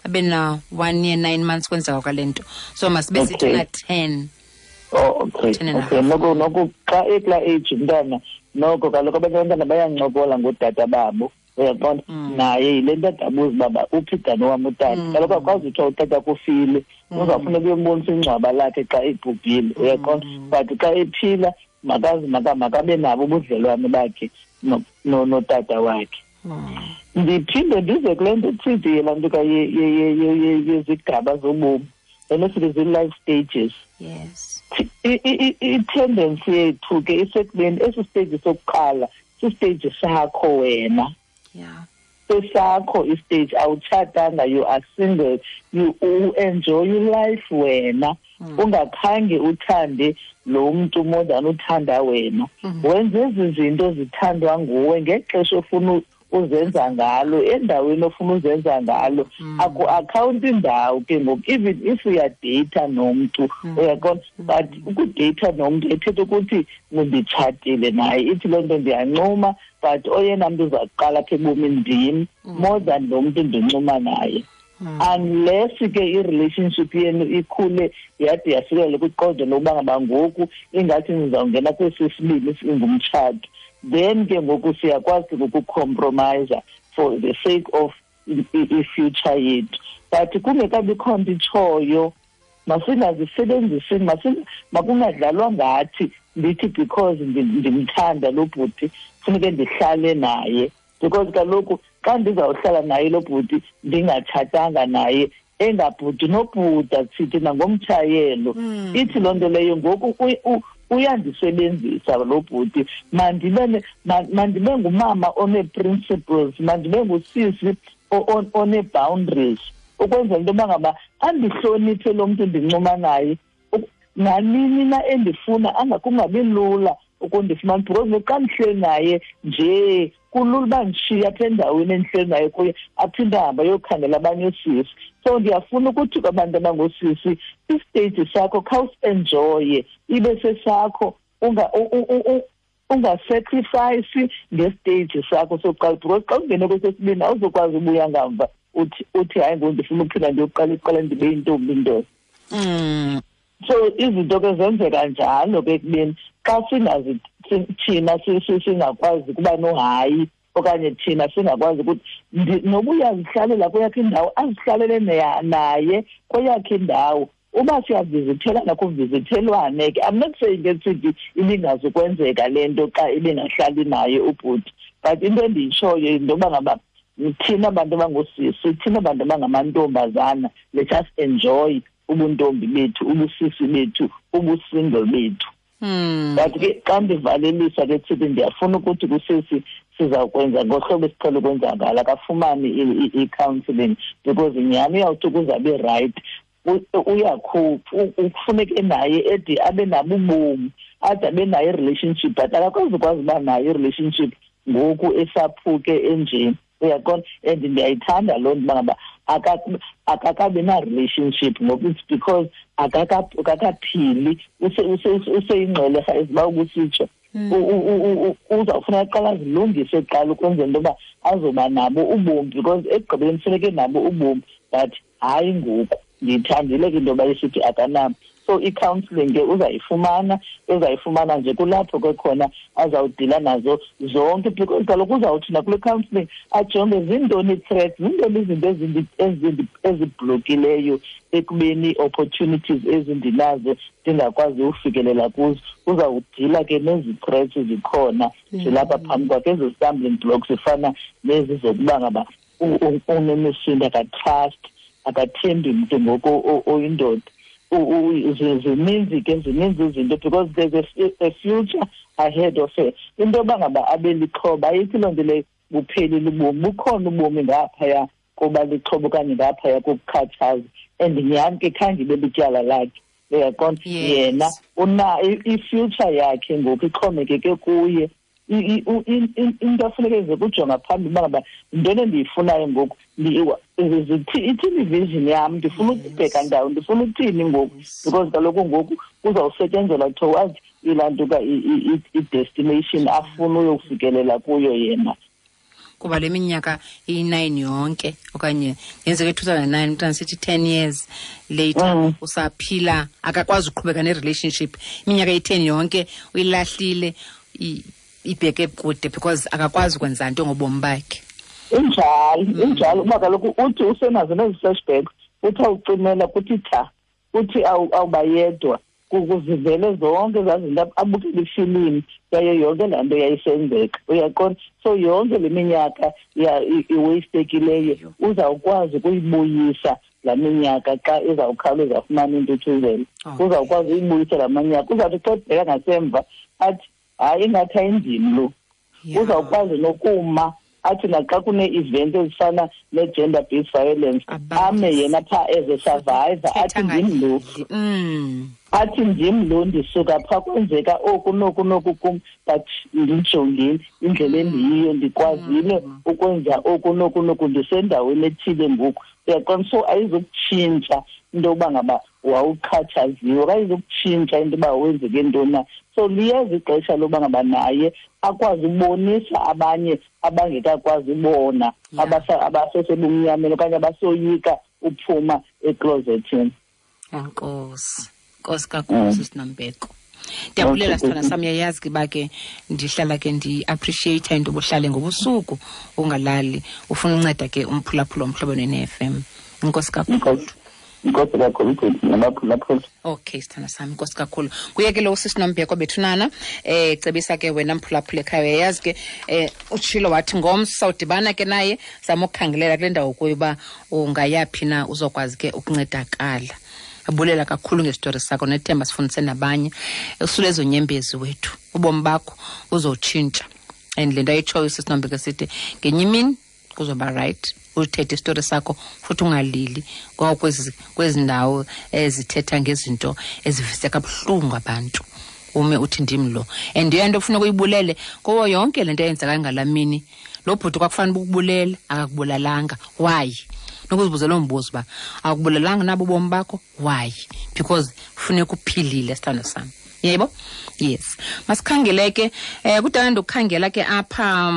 ebena 1 year 9 months kwenzeka kwale nto, so masibe sithi na 10.
Oh, okay. Okay, noko xa ekula age umntana noko kaloku abanye abantwana bayancokola ngootata babo, uyaqonda, naye yile nto adabuza uba uphi dani wam utata, kaloku akwazi uthiwa utata kufile, uzawufuneka uyombonisa ingcwaba lakhe xa ebhubhile, uyaqonda, but xa ephila makazi makabe nabo ubudlelwane bakhe notata wakhe. Ndiphinde ndize kule nto ithidi yelaa nto yezigaba zobomi, le nto sithi zii-life stages.
Yes.
I-tendency yethu ke isekubeni esi stage sokuqala sistage sakho wena.
Yeah.
Sesakho istage, awutshatanga, you are single, you enjoy your life wena. Ungakhange uthande lo mntu more than uthanda wena. Wenze ezi zinto zithandwa nguwe ngexesha ofuna uzenza ngalo, endaweni ofuna uzenza ngalo. Aku-akhawunti indawo ke ngoku, even if uyadeyitha nomntu, uyaqonda, but ukudeyitha nomntu ethetha ukuthi nditshatile naye, ithi loo nto ndiyancuma, but oyena mntu uza kuqala apha ebomini ndim more than lo mntu ndincuma naye. Unless ke i-relationship yenu ikhule yade yafikela kwiqondo lokuba ngaba ngoku ingathi nizawungena kwesi sibini singumtshato, then ke ngoku siyakwazi ukucompromise for the sake of i-future yethu. But kungekabikho nto itshoyo, masingazisebenzisi, makungadlalwa ngathi ndithi because ndimthanda lo bhuti funeke ndihlale naye, because kaloku xa ndizawuhlala naye lo bhuti ndingatshatanga naye, engabhuti nobhuda sithi nangomtshayelo, ithi loo nto leyo ngoku uyandisebenzisa lo bhuti, mandibe ngumama one-principles, mandibe ngusisi one-boundaries ukwenzela into yoba ngaba andihloniphe lo mntu ndincuma naye nanini na endifuna kungabi lula ukundifumana, because xa ndihleli naye nje kulula uba ndishiye apha endaweni endihleli naye kuye aphinde ahambe ayokhangela abanye oosisi. So ndiyafuna ukuthi kwabantu abangoosisi, isiteji sakho khawusi-enjoye, ibe sesakho, ungasacrifice ngesiteji sakho sokuqala, because xa ungene kwesesibini awuzokwazi ubuya ngamva uthi hayi ngoku ndifuna uphinda ndiyoqala iqala ndibe yintombi indoda. So izinto ke zenzeka njalo ke ekubeni xa singazi thina singakwazi ukuba nohayi okanye thina singakwazi ukuthi noba uyazihlalela kweyakhe indawo, azihlalele naye kweyakhe indawo. Uba siyavizithelana kuvizithelwane ke. I'm not saying ke sithi ibingazukwenzeka le nto xa ibingahlali naye ubhuti, but into endiyitshoyo yinto yoba ngaba thina bantu abangoosisi, thina bantu abangamantombazana, let us enjoy ubuntombi bethu, ubusisi bethu, ubusingle bethu. But ke xa ndivalelisa ke sithi ndiyafuna ukuthi kusisi sizawukwenza ngohlobo esiqhele ukwenza ngalo, akafumane i-counselling, because nyhani uyawuthi ukuze abe right uyakhupha, kufuneke naye ede abe nabo ubomi, ade abe nayo i-relationship, but akakwazi ukwazi uba nayo i-relationship ngoku esaphuke enjeni. Uyaqonda? And ndiyayithanda loo nto uba ngaba akakabi na-relationship ngoku, it's because akakaphili, useyingxwelerha eziba ukusitsho. Uzawufuna aqala azilungise kuqala ukwenzela into yoba azoba nabo ubomi, because ekugqibeleni kufuneke nabo ubomi, but hayi ngoku. Ndiyithandile ke into yoba isithi akanabo. So i-counselling ke uzayifumana, uzayifumana nje kulapho ke khona azawudila nazo zonke, because kaloku uzawuthi nakule counselling ajonge zintoni ii-threats, zintoni izinto ezibhlokileyo ekubeni ii-opportunities ezindinazo ndingakwazi ufikelela kuzo. Uzawudila ke nezi threats zikhona zilapha phambi kwakhe, ezi stumbling blocks zifana nezi zokuba ngaba unemisindo, akatrust, akathembi mntu ngoku oyindoda. Zininzi ke, zininzi izinto, because there's a future ahead of her. Into yoba ngaba abe lixhoba ayithi loo nto leyo buphelile ubomi, bukhona ubomi ngaphaya koba lixhoba okanye ngaphaya kokukhathaza. And nyhani ke khange ibe lityala lakhe, uyaqonda? Yena una i-future yakhe ngoku ixhomekeke kuye. Into afuneke eze kujonga phambili uba ngaba yintoni endiyifunayo ngoku, ithini i-vision yam, ndifuna ukubheka ndawo, ndifuna ukuthini ngoku, because kaloku ngoku kuzawusetyenzelwa towards ilaa nto ka i-destination afuna uyofikelela kuyo yena.
Kuba le minyaka iyi-9 yonke okanye yenzeke 2009, umntana sithi 10 years later usaphila, akakwazi uqhubeka ne-relationship. Iminyaka eyi-10 yonke uyilahlile, ibheke kude because akakwazi ukwenza nto ngobomi bakhe.
Injalo, injalo. Uba kaloku uthi usenazo nezi flashbacks, uthi awucimela kuthi tha, uthi awubayedwa, kuzivele zonke ezaa zinto, abukele ifilimu yayo yonke laa nto yayisenzeka. Uyaqonda? So yonke le minyaka iwastekileyo uzawukwazi ukuyibuyisa laa minyaka xa izawukhawuleza afumane intuthuzelo. Uzawukwazi ukuyibuyisa laa minyaka. Uzawuthi xa ebheka ngasemva athi hayi ingathi ayindim lo. Uzawukwazi nokuma athi naxa kunee-event ezifana ne-gender-based violence ame yena phaa as a survivor, athi ndim lo. Athi ndim lo, ndisuka phaa kwenzeka oku noku noku kum, but ndijongile indlela endiyiyo, ndikwazile ukwenza oku noku noku, ndisendaweni ethile ngoku. Uyaqonda? So ayizukutshintsha into yokuba ngaba wawuxhatshaziwe, ayizukutshintsha into yoba wenzeke ntoni na. So liyeza ixesha lokuba ngaba naye akwazi ubonisa abanye abangekakwazi ubona, abasesebumnyameni okanye abasoyika uphuma eklozethini.
Enkosi, nkosi kakhulu Sisi Nombeko. Ndiyabulela sithanda sam, uyayazi ke uba ke ndihlala ke ndi-appreciate into obuhlale ngobusuku ungalali, ufuna unceda ke umphulaphula Umhlobo Wenene FM. Enkosi kakhulu.
Inkosi kakhulu, nabaphulaphula.
Okay, sithanda sami, inkosi kakhulu. Kuye ke lo usisi Nombeko bethunana, cebisa ke wena mphulaphula ekhaya, uyayazi ke utshilo wathi ngomso sawudibana ke naye, zama ukukhangelela kule ndawo kuyo uba ungayaphi na uzokwazi ke ukuncedakala. Abulela kakhulu ngesitori sakho, nethemba sifundise nabanye. Usule ezo nyembezi wethu, ubomi bakho uzotshintsha. And le nto ayitshoyo usisi Nombeko sithi ngenye imini Kuzoba right. Uthethe isitori sakho futhi ungalili ngoba kwezi ndawo ezithetha ngezinto ezivise kabuhlungu abantu. Ume uthi ndim lo. And into ofuna ukuyibulele kuwo yonke lento eyenzeka ngalamini. Lo bhuti kwakufanele ukubulele, akakubulalanga. Why? Nokuzibuza lo mbuzo ba akubulalanga nabo ubomi bakho? Why? Because kufuneka uphilile sithando sami. Yebo? Yes. Masikhangele ke kudala ndokukhangela ke apha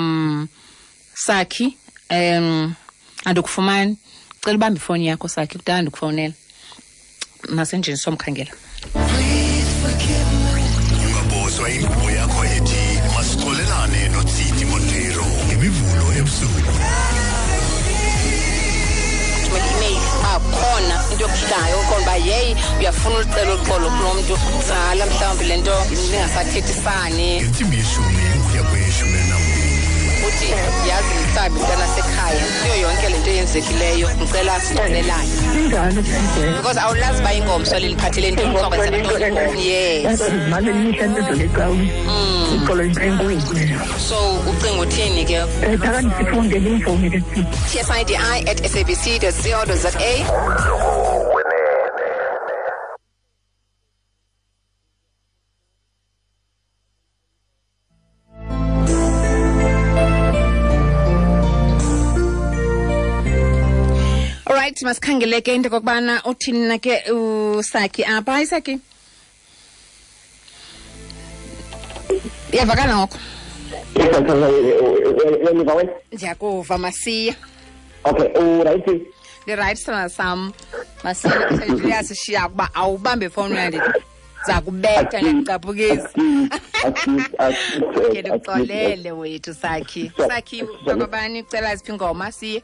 Sakhi andikufumani. Cela ubambe ifoni yakho Sakhi, kudala ndikufonela. Masenjini somkhangela.
Ungabozwa inkqubo yakho ethi masixolelane noTsidi Montero ngemivulo ebusuku.
Khona into yokuhlayo khona uba yeyi uyafuna ulicela uxolo kulo mntu tsala mhlawumbi le nto ningasathethisani.
Ngentsimbi yeshumi ukuya kweyeshumi elinambini.
Uthi yazi mhlawumbi mntana sekhaya kuyo yonke le nto eyenzekileyo ndicela sixolelane. Because awulazi uba ingomso liliphathele ntoni kuzokwenzeka ntoni. Yes. So ucinga uthini ke? tsidi@sabc.co.za. Alright, masikhangele ke into kokubana uthini na ke uSakhi apha. Hayi Sakhi. Iyavakala ngoko? Ndiyakuva Masiya.
Okay, uright.
Ndi-right sithando sam. Masiya uyasishiya ukuba awubambe ifowuni uyandi zakubetha ndiyakucaphukisa. Okay, ndikuxolele wethu Sakhi. Sakhi, bakabani ucela ziphi ingoma siye?